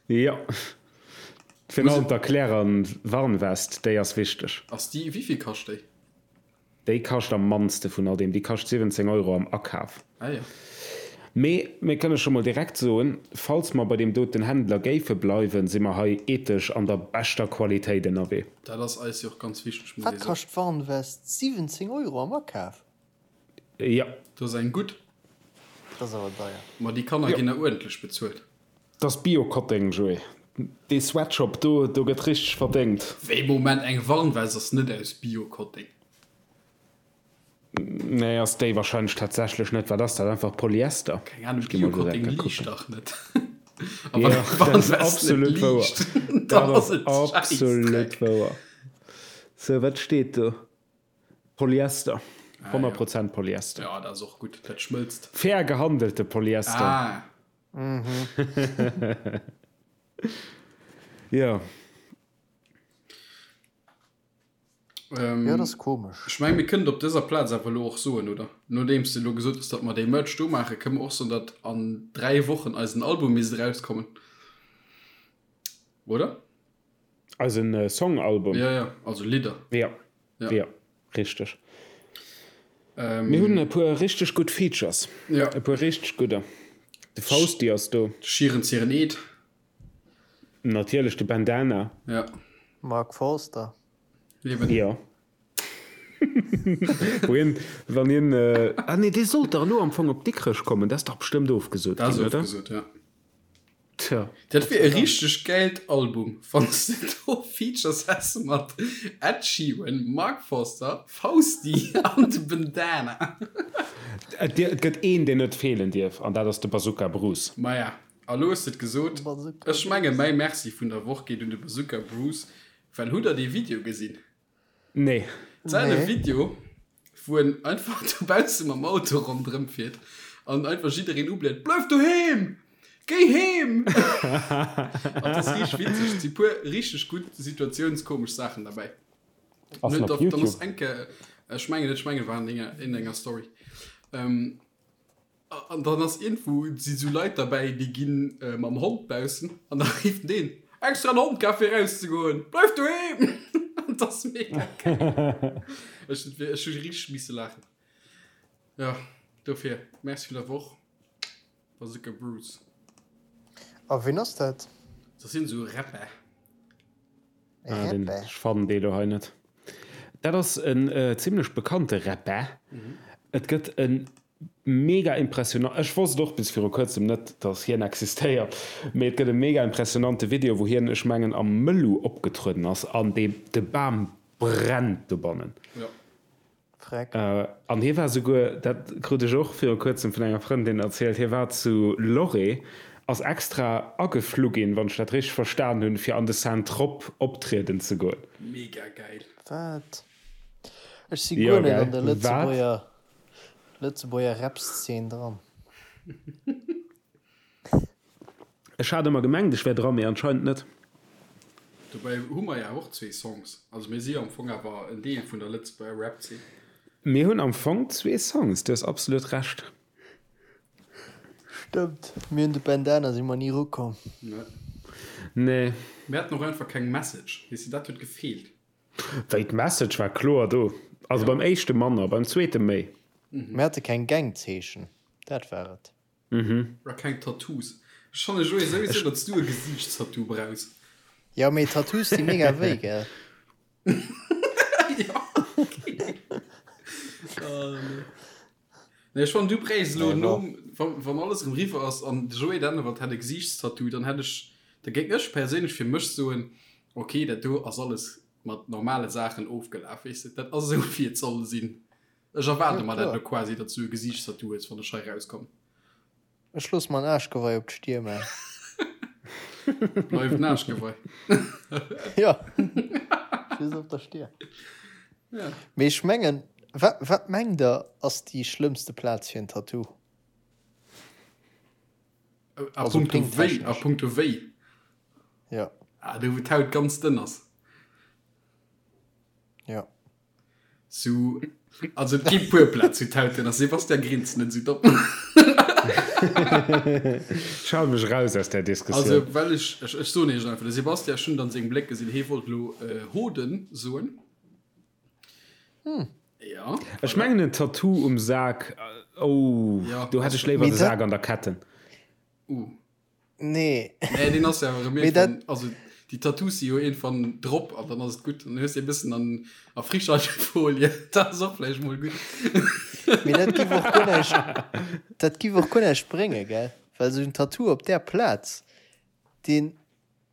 Jo. Virun allem d'Erklärer Warnwest, déi ass wichteg.
Ass déi, wéivill kascht déi?
Déi kascht am mannste vun all deem, déi kascht 17 Euro am Akaf.
Ah jo.
Mee mir kënne scho mol direkt soen, falls mer bei deem doten Händler géife bleiwen, si mer hei ethesch an der beschter Qualitéit ënnerwee.
Dat ass eis jo och ganz wichteg, muss
Wat
ee soen.
kascht d'Warnwest? 17 Euro am Akaf?
Jo.
Dat ass eng gutt.
Dat ass awer deier.
Ma déi Kanner ginn der uerdentlech bezuelt.
Dat ass Bio-Kotteng, Joé. Dee Sweatshop do, do gëtt richteg verdéngt.
Wéi, Moment, eng Warnwest ass net aus Bio-Kotteng?
Nee, ass déi wahrscheinlech tatsächlech net. Wat ass dat? Einfach Polyester?
Keng Ahnung,
Ech gi mol
Bio-Kotteng
direkt
liicht
kucken.
dach net. A wann
Jo,
eng
dat ass
Warnwest net
absolut wouer.
liicht,
Dat
dann
ass
ass et
absolut
Schäissdreck.
wouer. Sou, wat steet do? Polyester.
Ah,
100
jo.
Prozent Polyester.
Ja, dat ass och gutt, dat schmëlzt.
Fair gehandelte Polyester.
Ah.
Jo.
Ähm,
Jo, dat ass komesch.
Ech meng, mir kënnen et op dëser Plaz awer elo och soen, oder? Nodeems de elo gesot hues, datt mer dee Merch do maachen, kënne mer och soen, datt an 3 Wochen eisen Album misst erauskommen. Oder?
Eisen Song-Album?
Ja, ja, also Lidder.
Ja,
Ja.
ja, richteg.
Ähm,
Mir hunn e puer richteg gutt Features.
Ja.
E puer richteg gudder. De Fausti ass do.
De Schieren Zieren Eed.
Natierlech de Bandana.
Ja.
Mark Forster.
Eben.
Jo. Wou hien, wann hien, ah nee, dee sollt dach elo am Fong op Dikrech kommen, dat ass dach bestëmmt ofgesot
Dat ass
ginn, oder?
ofgesot, ja.
Tja.
Dat wier e richteg gäilt Album, wann s de do Features häss mat Ed Sheeran, Mark Forster, Fausti an de Bandana.
Et gëtt een, deen net feelen dierf, an dat ass de Bazooka Bruce.
Maja, a lo hues de et gesot. Ech menge mäi Merci vun der Woch geet un de Bazooka Bruce, well hutt der dee Video gesinn?
Nee.
Säin
Nee.
Video, wou en einfach dobausse mam Auto ronderëm fiert an einfach jiddereen ubléit, Bleif doheem! Géi heem! An dat ass richteg witzeg. Et si puer richteg gutt situatiounskomesch Saachen derbäi.
Ass en
Dann
op
ass
YouTube?
eng Kéier, ech mengen net, ech mengen et war an enger, in enger Story. Ähm, An dann ass iergendwou, si sou Leit derbäi, déi gi mam Hond baussen an da rifft deen, Extra en Hond kaf fir erauszegoen, bleif doheem! An dat ass mega geil. Ech hunn ech hu richteg misse laachen. Jo, dofir Merci vun der Woch, Bazooka Bruce.
A ween ass dat?
Dat sinn esou Rapper.
Ah, den, ech fannen dee lo hei net. Dat ass en zimlech bekannte Rapper. Et gëtt en mega impressionant, ech wosst och bis viru kuerzem net, dass hien existéiert, mee et gëtt e mega impressionante Video, wou hien, ech mengen am Mëllu opgetrueden ass an dee, de Bam brennt dobannen.
Jo.
Freck.
An hie war souguer, dat krut ech och viru kuerzem vun enger Frëndin erzielt, hie war zu Lloret, ass extra ageflu ginn, wann ech dat richteg verstan hunn, fir an de Saint-Tropes optrieden ze goen.
Mega gäil.
Wat? Ech si
Jo,
guer net an
gell?
der
Wat?
Lëtzebuerger Lëtzebuerger Rap-Szene dran.
Ech hat ëmmer gemengt, ech wär dran, mee anscheinend net.
Dobäi hu mer jo och zwee Songs. Also mir si jo am Fong awer en Deel vun der Lëtzebuerger Rap-Zeen.
Mir hunn am Fong zwee Songs, du hues absolut Recht.
Stëmmt, mir hunn de Bandana si mer ni erukomm.
Nee.
Nee.
Mir haten och einfach keng Message, weess de, dat huet gefeelt.
Wéi, d'Message war kloer do. Also beim éischte manner, beim zweete méi.
Mir hate keng Gangzeechen, dat war et.
Mhm.
A keng Tattoos. Ech fannen Joé souwisou datts du e Gesiichtstattoo brauchs.
Jo mee Tattoos di mega wéi gell?
Jo okay. Oh nee. Nee ech fannen du bréichs elo
Nee,
nom wann wann alles erëm riwwer ass an de Joé Dennewald hätt e Gesiichtstattoo dann hätt ech da géing ech perséinlech fir mech soen okay dat do ass alles mat normale Saachen ofgelaf weess de dat ass esou wéi et soll sinn. Ech erwaarde
Jo,
mer dat
kloer.
elo quasi, datt s du e Gesiichtstattoo hues, wann ech hei rauskomm.
Ech looss mer en Aarschgewei op d'Stier man.
Bleift en Aarschgewei.
Jo, just op der Stier.
Ja.
Mee ech mengen, wat, wat mengt der ass déi schlëmmste Plaz fir en Tattoo?
A
Also
punkto wéi? A
péngtechnesch.
punkto wéi?
Jo.
Ah, do wou d'Haut ganz dënn ass.
Jo.
Sou, also et gi puer Plätz wou d'Haut dënn ass. Sebastian grinst net sou domm.
Ech hale mech raus aus där Diskussioun.
Also well ech, ech, ech soen iech einfach, de Sebastian, ech hunn et an sengem Bléck gesinn, hee wollt elo Hoden soen. Ja.
Ech mengen en Tattoo um Sak, oh,
Ja.
do hätt ech léiwer
Mee
de
dat-
Sak an der Ketten.
Uh.
Nee.
Nee, deen ass ja erëm
Mee dat-
iergendwann, also déi Tattoos si jo iergendwann drop an dann ass et gutt. Dann hues de e bëssen an a Frischhaltefolie, dat ass och vläicht mol gutt.
Mee dat giff och guer näischt, dat giff och guer näischt bréngen, gell? Well esou en Tattoo op där Plaz, deen,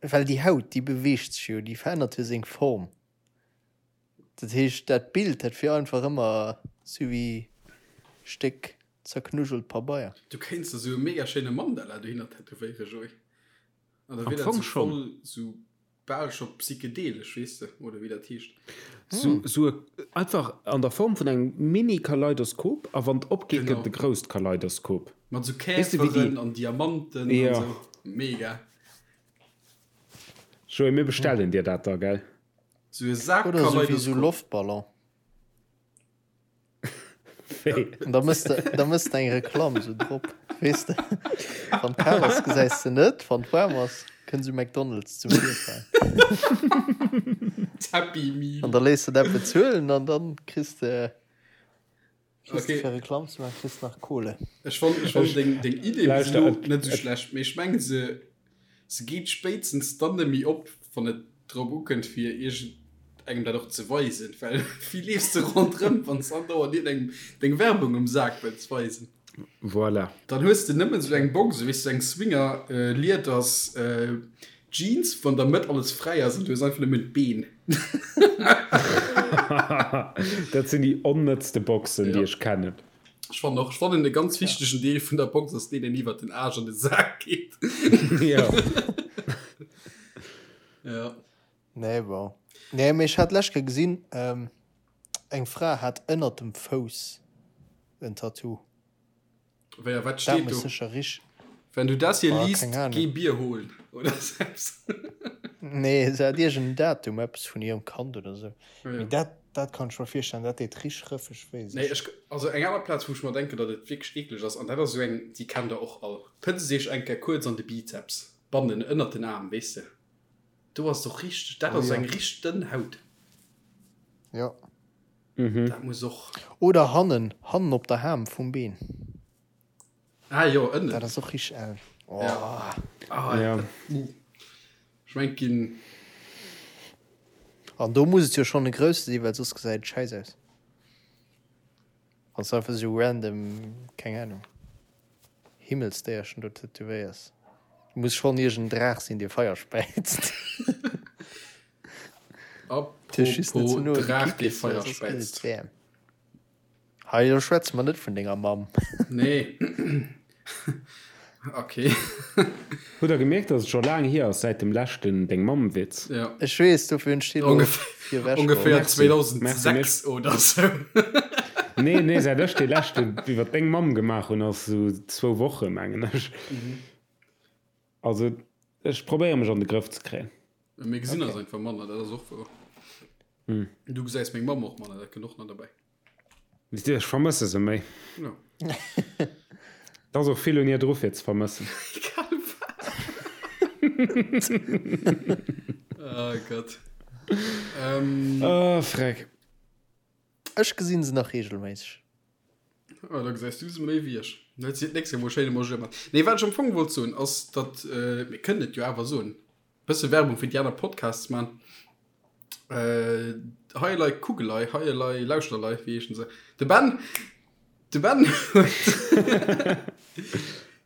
well déi Haut, déi beweegt sech jo, déi verännert jo seng Form. Dat heescht, dat Bild, dat wier einfach ëmmer sou wéi Stéck zerknujelt Pabeier.
Du kéints der sou e mega schéine Mandala dohinner tätowéieren, Joé. An da
Am
wier dat
Fong
sou
schonn.
voll sou bal scho psychedelesch, weess de, oder wéi dat heescht.
Sou, sou e, einfach an der Form vun engem Mini-Kaleidoskop, a wann et opgeet,
Genau.
gëtt et e grousst Kaleidoskop.
Mat sou
Weess de, wéi déi.
Käferen an Diamanten an
Jo.
sou. Mega.
Joé, mir bestellen dir dat da, gell?
Sou e Sak
Oder sou wéi sou
Kaleidoskop.
Loftballon.
Wéi?
An da mëss de, da mëss de eng Reklamm sou drop, weess de. Wann et kal ass, gesäis de net, wann et waarm ass, kënnt sou McDonald's zum Virschäin.
D'Happy Meal.
An da léiss de dat bezuelen an dann kriss de, kriss de
Okay.
fir Reklamm ze maachen, kriss de nach Kohle.
Ech fann, ech fann deng, deng Idee bis
Lauschter,
elo
et,
net sou
et,
schlecht, mee ech mengen se, se geet spéitstens dann net méi op, wann et drop ukënnt fir iergend engem dat och ze weisen, well wéi leefs de ronderëm, wann s andauernd iergendengem deng Werbung um Sak wëlls weisen?
Voilà.
Dann hues de nëmmen sou eng Box, weess du, eng Swinger Lieders Jeans, wou an der Mëtt alles fräi ass an du hues einfach nëmmen d'Been.
Dat sinn déi onnëtzte Boxen, déi
Ja.
ech kennen.
Ech fannen och, ech fannen e ganz wichtegen Deel vun der Box ass deen, deen iwwert den Aarsch an de Sak geet.
Ja.
Ja.
Nee, bon. Nee, mee ech hat d'lescht Kéier gesinn, eng Fra hat ënnert dem Fouss en Tattoo.
Wéi a wat
Dat
steet
muss
do?
sécher rich.
Wenn du das hier
Oh,
liest,
keng Ahnung.
geh Bier holen oder sou eppes.
Nee, se hat iergend en Datum, eppes vun hirem Kand oder sou.
Ja.
Mee dat, dat kann ech mer virstellen, dat deet rich rëffeg wéi,
Nee,
sécher.
ech, also eng aner Plaz, wou ech mer denken, datt et wierklech eekleg ass, an dat ass esou eng, déi kennt der och all, Pëtzt iech eng Kéier kuerz an de Bizeps, bannen, ënnert den Aarm, weess de. Do ass et och richteg, dat
Oh
ass
jo.
eng richteg dënn Haut.
Jo.
Dat muss och.
Oder hannen, hannen op der Ham vum Been.
Ah jo, ënnen.
Dat ass och richteg eng. Oh.
Ja. Ah,
Ja.
dat, uh. Ech mengt ginn.
An do muss et jo schonn e grousse sinn, well soss gesäit et schäiss aus. Wann s de einfach esou random, keng Ahnung, Himmelsdéierchen do tätowéiers. Muss schonn iergend en Draach sinn, dee Feier späizt.
Apropos Draach, dee Feier späizt.
Hei, elo schwätze mer net vun denger Mamm.
Nee. Okay.
Hutt der gemierkt, dass et scho laang hier ass säit dem leschten Deng Mamm-Witz?
Ja.
Ech weess, dofir hunn ech dee elo
virewech geholl. Ongeféier 2006 oder sou.
Nee, nee, säit ech dee leschten iwwer deng Mamm gemaach hunn, ass sou zwou Woche, mengen ech. Also, ech probéiere mech an de Grëff ze kréien.
Mir gesinn eis einfach manner, dat ass och wouer. Du gesäis meng Mamm och manner, dat kënnt och nach derbäi.
Ech vermësse se méi.
Ja.
Et ass och vill un hir dru fir ze vermëssen.
Egal wat. Oh Gott.
Ähm. Oh, Freck.
Ech gesinn se nach regelméisseg.
Oh, da gesäis du se méi wéi ech. Da huet si d'nächst Kéier mol schéin emol mat. Nee, wat ech am Fong wollt soen, ass, datt, mir kënnen et jo awer soen, bësse Werbung fir déi aner Podcasts man. Äh, hei elei Kugelei, hei elei Lauschterlei, wéi heeschen se? De Ben, de Ben huet,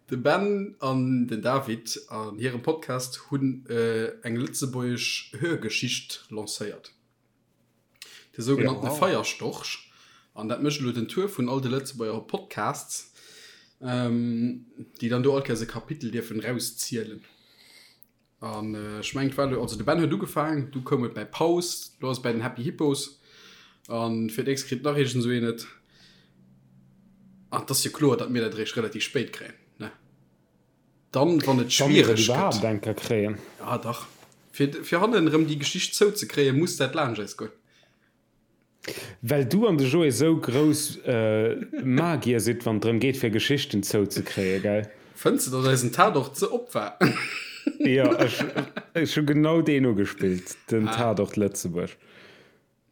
de Ben an den David an hirem Podcast hunn äh, eng lëtzebuergesch Hörgeschicht lancéiert. De sougenannte
Ja.
Feierstorch. An dat mécht elo den Tour vun all de Lëtzebuerger Podcasts, ähm, déi dann do all Kéiers e Kapitel dierfen rauszielen. An ech mengen et war elo, also de Ben huet ugefaangen, du koum et bäi Paus, lo ass et bäi den Happy Hippos an fir d'nächst kritt nach iergend esou een et. An et ass jo kloer, datt mir dat eréischt relativ spéit kréien, ne? Dann, wann et
Wa mir et
schwiereg gëtt.
iwwerhaapt eng Kéier kréien.
Ja, dach. Fir, fir hannen erëm déi Geschicht zouzekréien, muss dat laanscht eis goen.
Well du an de Joé sou grouss Magier sidd, wann et drëm geet fir Geschichten zouzekréien, gell?
Fënns de, datt eisen Tatort ze op war?
Jo, ech hu genau deen ugespillt, den Tatort Lëtzebuerg.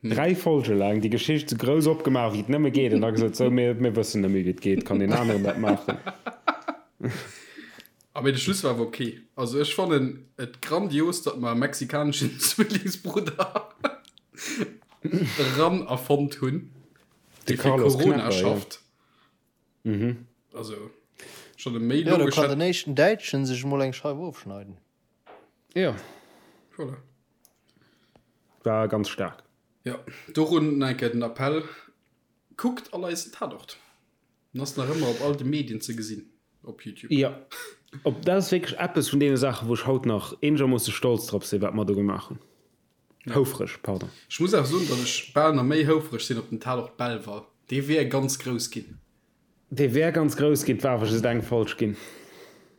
Dräi Folge laang déi Geschicht sou grouss opgemaach wéi et nëmme geet an da gesot, sou, mir wëssen net méi wéi et geet, kann een aneren dat maachen?
Ah mee de Schluss war awer ok. Also ech fannen et grandios datt mer e mexikaneschen Zwillingsbrudder eran erfonnt hunn,
De
dee fir
Carlos
Corona
Knepper, ja.
schafft. Also schon e méi
Jo, do
logesch
kann
hätt.
den éischten Däitschen sech emol eng Scheif ofschneiden.
Ja.
Voilà.
War ganz staark.
Jo, dorun nach eng Kéier den Appell, kuckt all eisen Tatort. En ass nach ëmmer op all de Medien ze gesinn op YouTube.
Jo, op dat ass wierklech eppes vun deene Saachen, wou ech haut nach eenegermoosse stolz drop sinn, wat mer do gemaach hunn. Houfreg, pardon.
Ech muss awer soen, datt ech bal nach méi houfreg sinn op den Tatort Belval. Dee wier ganz grouss ginn.
Dee wär ganz grouss ginn, 't war awer just eng Folg ginn.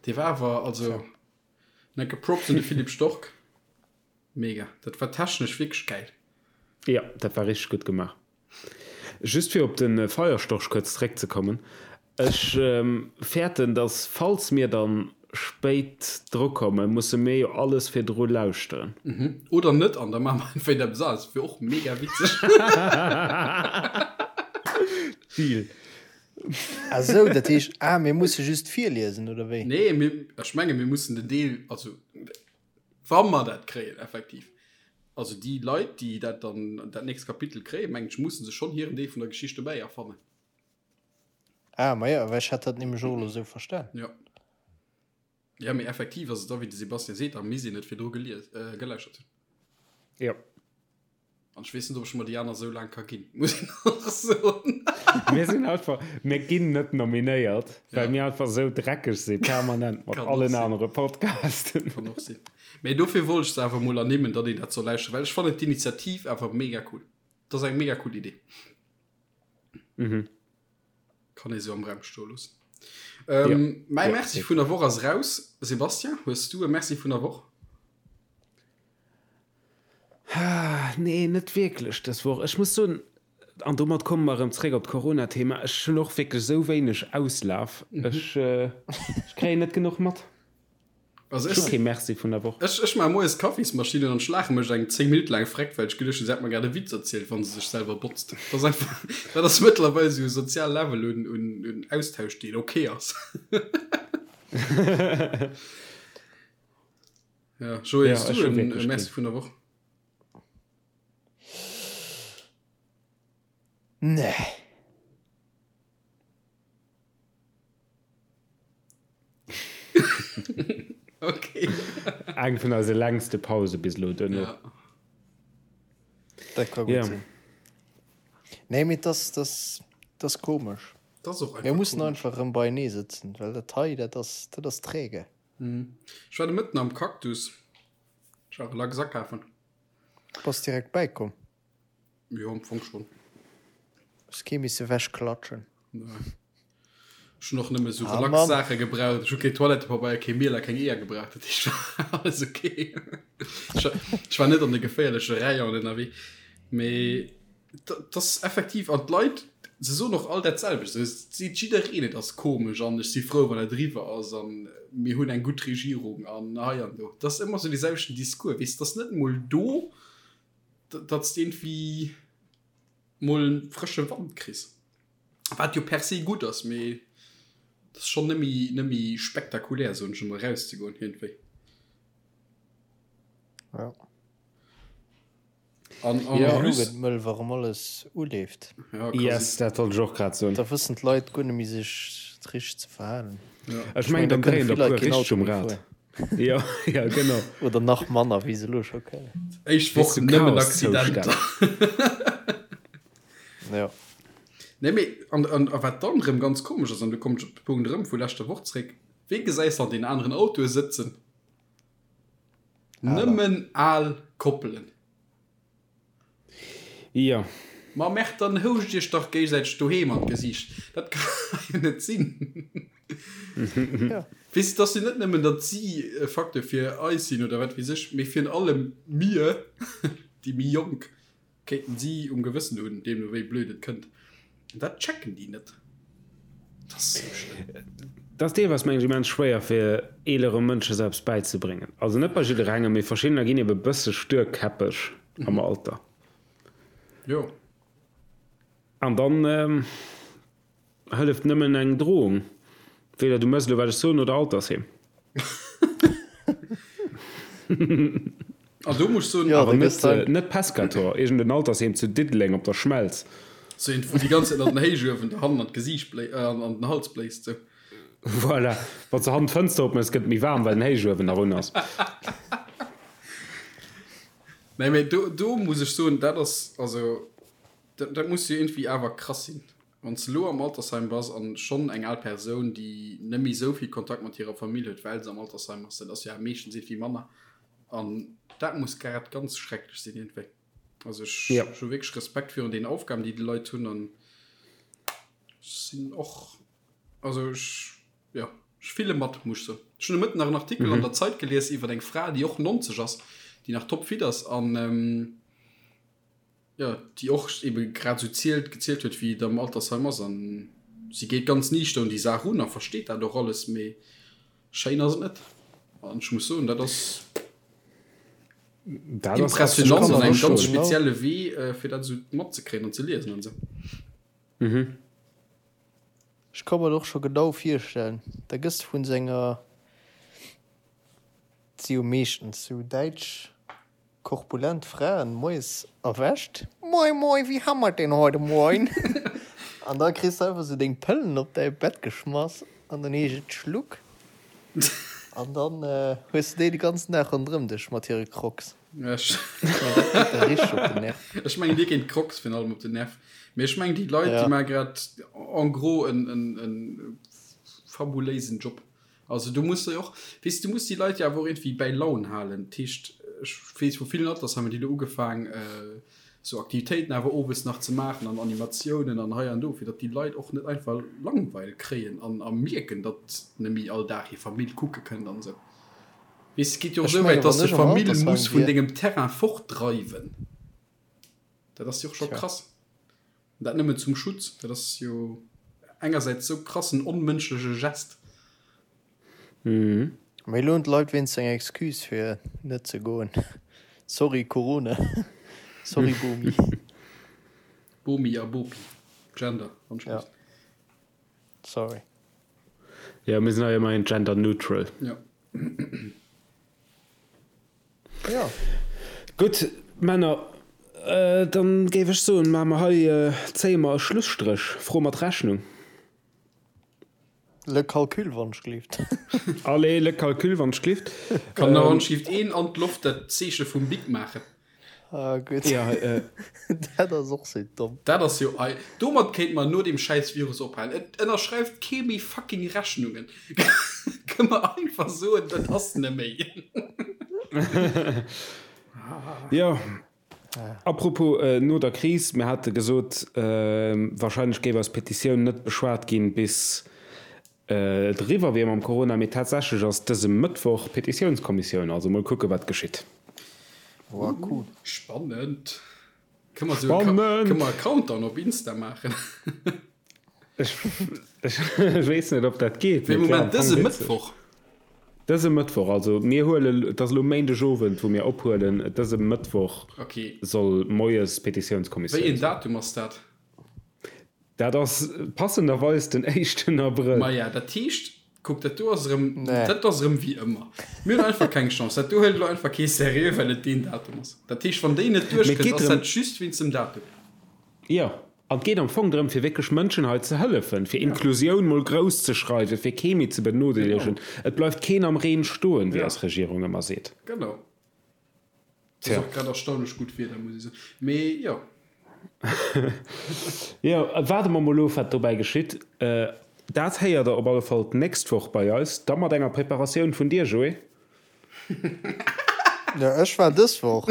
Dee war awer, also, enke Props un de Philippe Storck. Mega. Dat war technesch wierklech gäil.
Jo, dat war richteg gutt gemaach. Just fir op de Feierstorch kuerz zréckzekommen, Ech fäerten, dass falls mir dann spéit drukommen, musse mir jo alles virdru lauschteren.
Oder net, an da maache mer einfach eppes aneres. Dat wier och mega witzeg.
Deal.
Ah sou, dat heescht, ah, mir musse just virliesen, oder wéi?
Nee, mir, ech menge mir mussen den Deel, also Wa mer dat kréien, effektiv. Also déi Leit, déi dat dann, dat nächst Kapitel kréien, mengen ech, musse sech schonn hiren Deel vun der Geschicht dobäi erfannen.
Ah, ma jo, well ech hat dat nämlech och elo esou verstan.
Jo. Jo, mee effektiv ass et da, wéi de Sébastien seet, da misst een et virdru gelies, geläuschert hunn.
Jo.
An ech weess net, ob ech mer déi aner esou laang ka ginn, muss een och soen.
Mir sinn einfach, mir ginn net nominéiert, well mir einfach esou dreckeg si permanent mat allen anere Podcasten.
Kann och sinn. Mee dofir wollt ech se awer emol ernimmen, datt een dat soll lauschteren, well ech fannen d'Initiativ awer mega cool. Dat ass eng mega cool Idee. Kann ee sou am Raum stoe loossen. Mäi Merci vun der Woch ass raus. Sébastien, hues du e Merci vun der Woch?
Nee, net wierklech dës Woch. Ech muss soen, an domat komme mer erëm zréck op d'Corona-Thema, ech hunn och wierklech esou wéineg Auslaf. Ech kréien net genuch mat.
Also
Ech hu
ech,
kee Merci vun der Woch.
ech, ech maache moies d'Kaffismaschinn an ech laache mech eng 10 Minutte laang freck, well ech geduecht hunn, se hätt mer grad e Witz erzielt, wann se sech selwer botzt. Dat ass einfach, dat ass mëttlerweil esou e sozial Level un, un, un Austausch, deen ok ass. Ja, Joé,
Ja,
hues
ech
du
hu
en
wierklech
Merci
keen.
vun der Woch?
Nee.
Okay.
Eng vun eise längste Pause bis elo duerno.
Ja.
Dat ka gutt
Ja.
sinn. Nee, mee dass, dass. Dat ass komesch.
Dat ass och
Mir
einfach
mussen
komesch.
einfach erëm beienee sëtzen, well dat hei, dat ass, dat ass träge.
Ech war de Mëtten am Cactus. Ech war relax akafen.
Bass direkt bäikomm?
Jo, am Fong schon.
Hues kee misse wechklatschen?
Nee. Ech hunn och nëmme sou
Ah,
relax
Mann.
Saache gebraucht. Ech hu kee Toilettepabeier, kee Miel a keng Eeër gebraucht. Dat heescht, war alles okay. Ech war, ech war net an de geféierleche Rayonen ënnerwee. Mee dat ass effektiv, an d'Leit, se soen och all dat selwecht. Se seet jiddereen, et ass komesch an ech si frou, wann et eriwwer ass an mir hunn eng gutt Regierung an hei an do. Dat ass ëmmer sou dee selwechten Discours, weess, et ass net emol do, datt s de iergendwéi mol frësche Wand kriss. Wat jo per se gutt ass, mee et ass schonn net méi, net méi spektakulär, soen ech emol, erauszegoen iergendwéi.
Ja.
An en
Ja.
Elo
plus,
gëtt mëll, wa rëm alles uleeft.
ja, quasi.
Yes, dat wollt ech och grad soen.
Da wëssen d'Leit guer net méi sech richteg ze verhalen.
Ja.
Ech
Ech
mengen,
mengen, da
dann
kënne
dréien
vill
der
Leit
puer
keen
richteg
Auto
um
méi
Rad.
fueren.
Jo, ja, genau.
Oder nach manner, wéi se elo scho kënnen.
Éischt
Weess
Woch
du,
nëmmen
Chaoszustand.
Accidenter.
Ja.
Nee, mee, an, an, a wat dann erëm ganz komesch ass, an do kommen ech op de Punkt erëm vu leschter Woch zréck, Wee gesäis an den aneren Autoe sëtzen?
Aler.
Nëmmen al Koppelen.
Jo.
Ma merkt, dann houscht iech dach géigesäiteg doheem an d'Gesiicht. Dat ka jo net sinn.
Ja.
Weess de, et ass jo net nëmmen, datt si e Facteur fir eis sinn oder wat weess ech, mee virun allem mir, déi méi Jonk, kéinten si um Gewëssen hunn, deemno wéi blöd et kënnt. An dat checken déi net. Dat ass esou schlëmm.
Dat ass deelweis, mengen ech, immens schwéier fir eelere Mënsche selbst bäizebréngen. Also net bei jidderengem, mee verschiddener ginn ebe bësse stuerkäppeg am Alter.
Jo.
An dann hëlleft nëmmen eng Drohung. Weder du mëss elo wat ech soen oder Altersheem.
An do muss ech soen,
Jo,
Awer
da
net,
gëss dann.
net Pescator, iergend en Altersheem zu Diddeleng op der Schmelz.
Sou eent, wou déi ganz Zäit an den Héichuewen der hannen an d'Gesiicht bléi, an den Hals bléist, sou.
Voilà, wann s de hannen d'Fënster opmëss, gëtt et méi waarm, well den Héichuewen nach un ass.
Nee, mee do, do muss ech soen, dat ass, also, dat, dat muss jo iergendwéi awer krass sinn, wann s de elo am Altersheim bass an schonn eng al Persoun, déi net méi esou vill Kontakt mat hirer Famill huet, well se am Altersheim ass, dat ass jo awer meeschtens iergendwéi manner, an dat muss grad ganz schrecklech sinn iergendwéi. Also ech,
Ja.
ech hu wierklech Respekt virun den Aufgaben, déi déi Leit hunn an ech sinn och, also ech, jo, ech fille mat, muss ech soen. Ech hunn de Mëtten nach en Artikel an der Zeit gelies iwwer eng Fra, déi och 90 ass, déi nach topfit ass an, jo, déi och ebe grad esou zielt, gezielt huet, wéi et am Altersheim ass. An si geet ganz niichter un déi Saach un a versteet dat och alles, mee schéin ass et net. An ech muss soen, dat ass
Dat ass
impressionant an engem ganz
Genau.
spezielle Wee, fir dat esou matzekréien an ze liesen an esou.
Ech ka mer et och scho genau virstellen. Da gëss de vun senger, et si jo meeschtens sou däitsch korpulent Fraen, moies erwächt, Moin, moin, wie ha mer denn heute Moin? An da kriss de einfach sou deng Pëllen op däi Bett geschmass an dann heescht et Schluck. An dann hues de déi de ganzen Dag ronderëm dech mat hire Crocs.
Ech
Ech mengen, dat geet der richteg op den Nerv.
Ech mengen, dir ginn d'Crocs virun allem op den Nerv. Mee ech mengen, déi Leit, déi
Ja.
maache grad en gros en, en, en fabuléisen Job. Also du muss jo och, weess du muss déi Leit jo awer och iergendwéi bäi Laun halen. Dat heescht, ech weess vu villen Altersheimer, déi elo ugefaang esou Aktivitéiten awer owes nach ze maachen an Animatiounen an hei an do, fir datt déi Leit och net einfach Langweil kréien an a mierken, datt net méi all Dag hir Famill kucke kënnt an esou. Weess, et geet jo och
Ech
esou wäit,
menge
datt
wann
de
ech am
Famill
Altersheim
muss vun
wier.
dengem Terrain fortdreiwen. Dat ass jo och scho
Tja.
krass. An dat nëmmen zum Schutz. Dat ass jo engersäits sou krassen onmënschleche Gest.
Mee elo hunn d'Leit wéinst eng Excuse fir net ze goen. Sorry Corona. Sorry Bomi.
Bomi a Bopi. Gender, wann ech
Ja.
misst.
Sorry.
Jo, mir sinn hei ëmmerhin gender neutral.
Ja.
Ja.
Gutt, Männer, dann géif ech soen, maache mer hei, zéie mer e Schlusstréch, Fro mat Rechnung.
Le calcul, wann ech gleeft.
Allez, le calcul, wann ech gleeft.
Kann nach anscheinend een an d'Loft dat Zeeche vum Bic maachen.
Ah gutt.
Ja, äh.
Dat ass och sou domm.
Dat ass jo ei. Domat kéinte mer no deem schäiss Virus ophalen. Et ënnerschreift kee méi fucking Rechnungen. Kënne mer einfach soen, dat ass neméi.
Jo. Apropos no der Kris, mir hate gesot, warscheinlech géif eis Petitioun net beschwat ginn, bis et eriwwer wier mam Corona, mee tatsächlech ass dëse Mëttwoch Petitiounskommissioun, also mol kucke wat geschitt.
Woah cool.
Spannend. Kënne mer esou e
Spannend!
Countdown op Insta maachen?
Ech weess net, ob dat geet.
Wéi Moment, dëse Mëttwoch?
Dëse Mëttwoch, also mir huelen, et ass elo Méindegowend, wou mir ophuelen, dëse Mëttwoch soll moies d'Petitiounskommissioun
Wéi een Datum ass dat?
Dat ass passenderweis den éischten Abrëll.
Maja, dat heescht, kuck, dat do ass erëm, dat ass erëm wéi ëmmer. Mir hunn einfach keng Chance. Dat do huelt elo einfach kee seriö, well et deen Datum ass. Dat heescht, wann déi net duerchkënnt, ass dat just wéinst dem Datum.
Jo, an et geet am Fong drëm, fir wierklech Mënschen hei ze hëllefen, fir Inklusioun mol grouss ze schreiwen, fir kee méi ze benodeelegen. Et bleift keen am Reen stoen, wéi eis Regierung ëmmer seet.
Genau. Et ass och grad erstaunlech gutt Wieder, muss ech soen. Mee jo.
Jo, waarde mer mol of, wat dobäi geschitt. Dat héiert Der op alle Fall d'nächst Woch bei eis, da mat enger Preparatioun vun dir, Joé.
Jo, ech war dës Woch.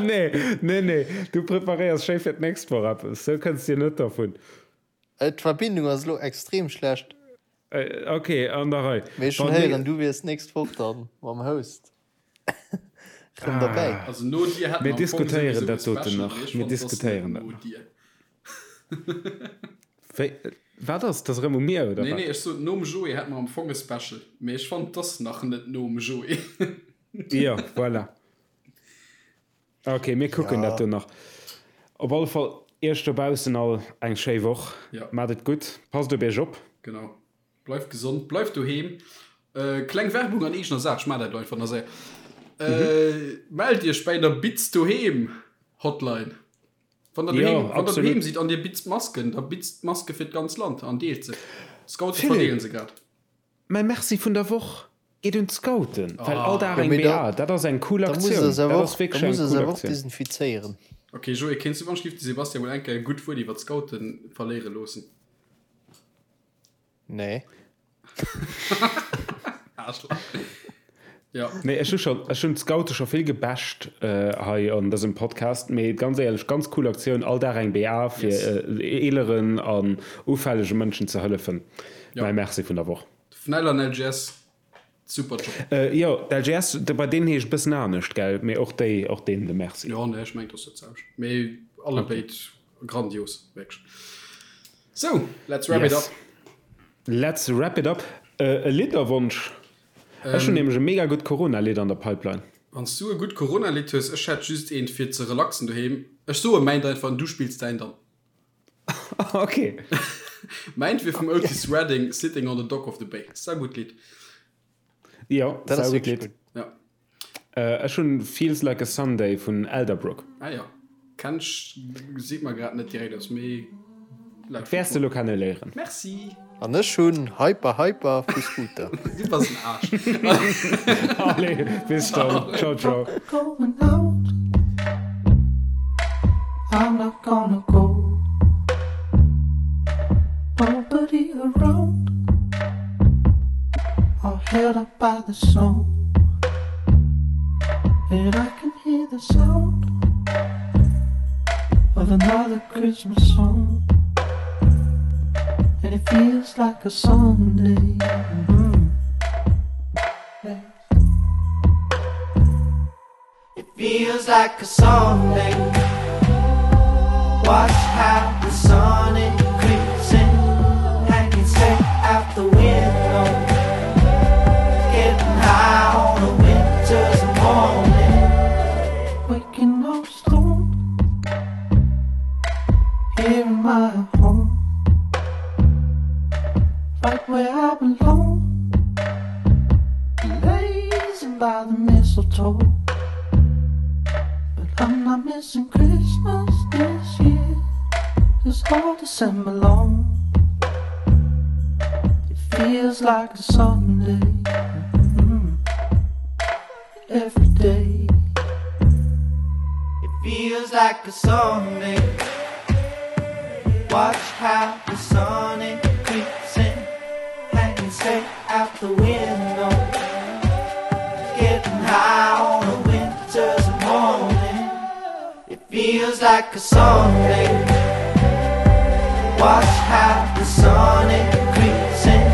Nee, nee, nee, du preparéiers schéi fir d'nächst Woch eppes, sou kënns dir net dervun.
D'Verbindung ass elo extrem schlecht.
Ok, an der Rei.
Mee ech hunn héieren, du wiers d'nächst Woch dann mam Host rëm derbäi.
Also no dir hätt
Mir
mer am Fong
diskutéieren
souwisou e
dat doten
Special,
nach.
mee ech
Mir
fannen, et ass net
diskutéieren dat
no
nach.
dir.
Wéi, wat ass? Dat ass erëm u mir, oder
Nee,
wat?
nee, ech sot nom Joé hätt mer am Fong e Special, mee ech fannen, et ass nach net nom Joé.
Jo, voilà. Ok, mir kucken
Ja.
dat do nach. Op alle Fall Iech dobaussen all eng schéi Woch.
Ja.
Maacht et gutt, passt op Iech op.
Genau. Bleift gesond, bleift doheem. Kleng Werbung an eegener Saach, ech maachen dat elo einfach nach séier. Mellt Iech bäi der Bitz Doheem Hotline. Wann der doheem, wann der doheem sidd an dir bitzt Masken, da bitzt Maske fir d'ganz Land an deelt se. D'Scoute verdeelen se grad.
Mäi Merci vun der Woch geet un d'Scouten, well all Dag eng BA, dat ass eng cool Aktioun. Dat ass wierklech eng cool Aktioun.
Desinfizéieren.
Ok Joé, kéints du wann ech giff de Sebastian mol eng Kéier e gutt Wuert iwwer d'Scoute verléiere loossen?
Nee.
Aarschlach. Ja.
Nee, ech hu schon, ech hunn d'Scoute scho vill gebasht hei an dësem Podcast, mee ganz éierlech, ganz cool Aktioun, all Dag eng BA fir
Yes.
eeleren an ufällege Mënschen ze hëllefen.
Ja.
Mäi Merci vun der Woch.
FNEL an LGS, super Job.
Jo, d'LGS, bei deenen heescht et bëssen anescht, gell? Mee och déi, och deenen de Merci.
Jo, nee, ech mengen, et ass dat selwecht. Mee allebéid grandios, wierklech. So, let's wrap it
Yes.
up.
Let's wrap it up. E Lidderwonsch? Ech hunn nämlech e mega gutt Corona-Lidd an der Pipeline.
Wann s du e gutt Corona-Lidd hues, ech hätt just eent fir ze relaxen doheem. Ech soe mäint einfach an du spills däin dann.
Ok.
Mäint wier vum Otis Redding, Sitting on the Dock of the Bay. Saugutt Lidd.
Jo,
Dat ass
saugutt
wierklech
Lidd.
gutt.
Ja.
Ech hunn Feels Like a Sunday vun Elderbrook.
Ah jo, kenn ech, seet mer grad net direkt eppes, mee lauschteren
Wäers de
ech
lo
mol.
kenne léieren.
Merci!
An ech hunn Hyper Hyper vu Scooter.
Du bass en Aarsch.
Allez, bis dann. Ciao, ciao.
Going out. I'm not gonna go. Nobody around. All held up by the snow. And I can hear the sound of another Christmas song. And it feels like a Sunday. Mm -hmm. yeah. It feels like a Sunday. Watch how the sun it creeps in. Hanging straight out the window. Getting high on a winter's morning. Waking up stoned here in my home. Right where I belong. Blazing by the mistletoe. But I'm not missing Christmas this year. It's all December long. It feels like a Sunday mm -hmm. every day. Feels like a Sunday. Watch how the sun it creeps in, hanging straight out the window. Getting high on a winter's morning. It feels like a Sunday. Watch how the sun it creeps in,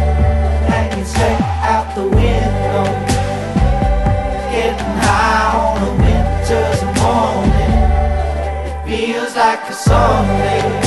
hanging straight out the window. Getting high on a winter's morning. It feels like a Sunday.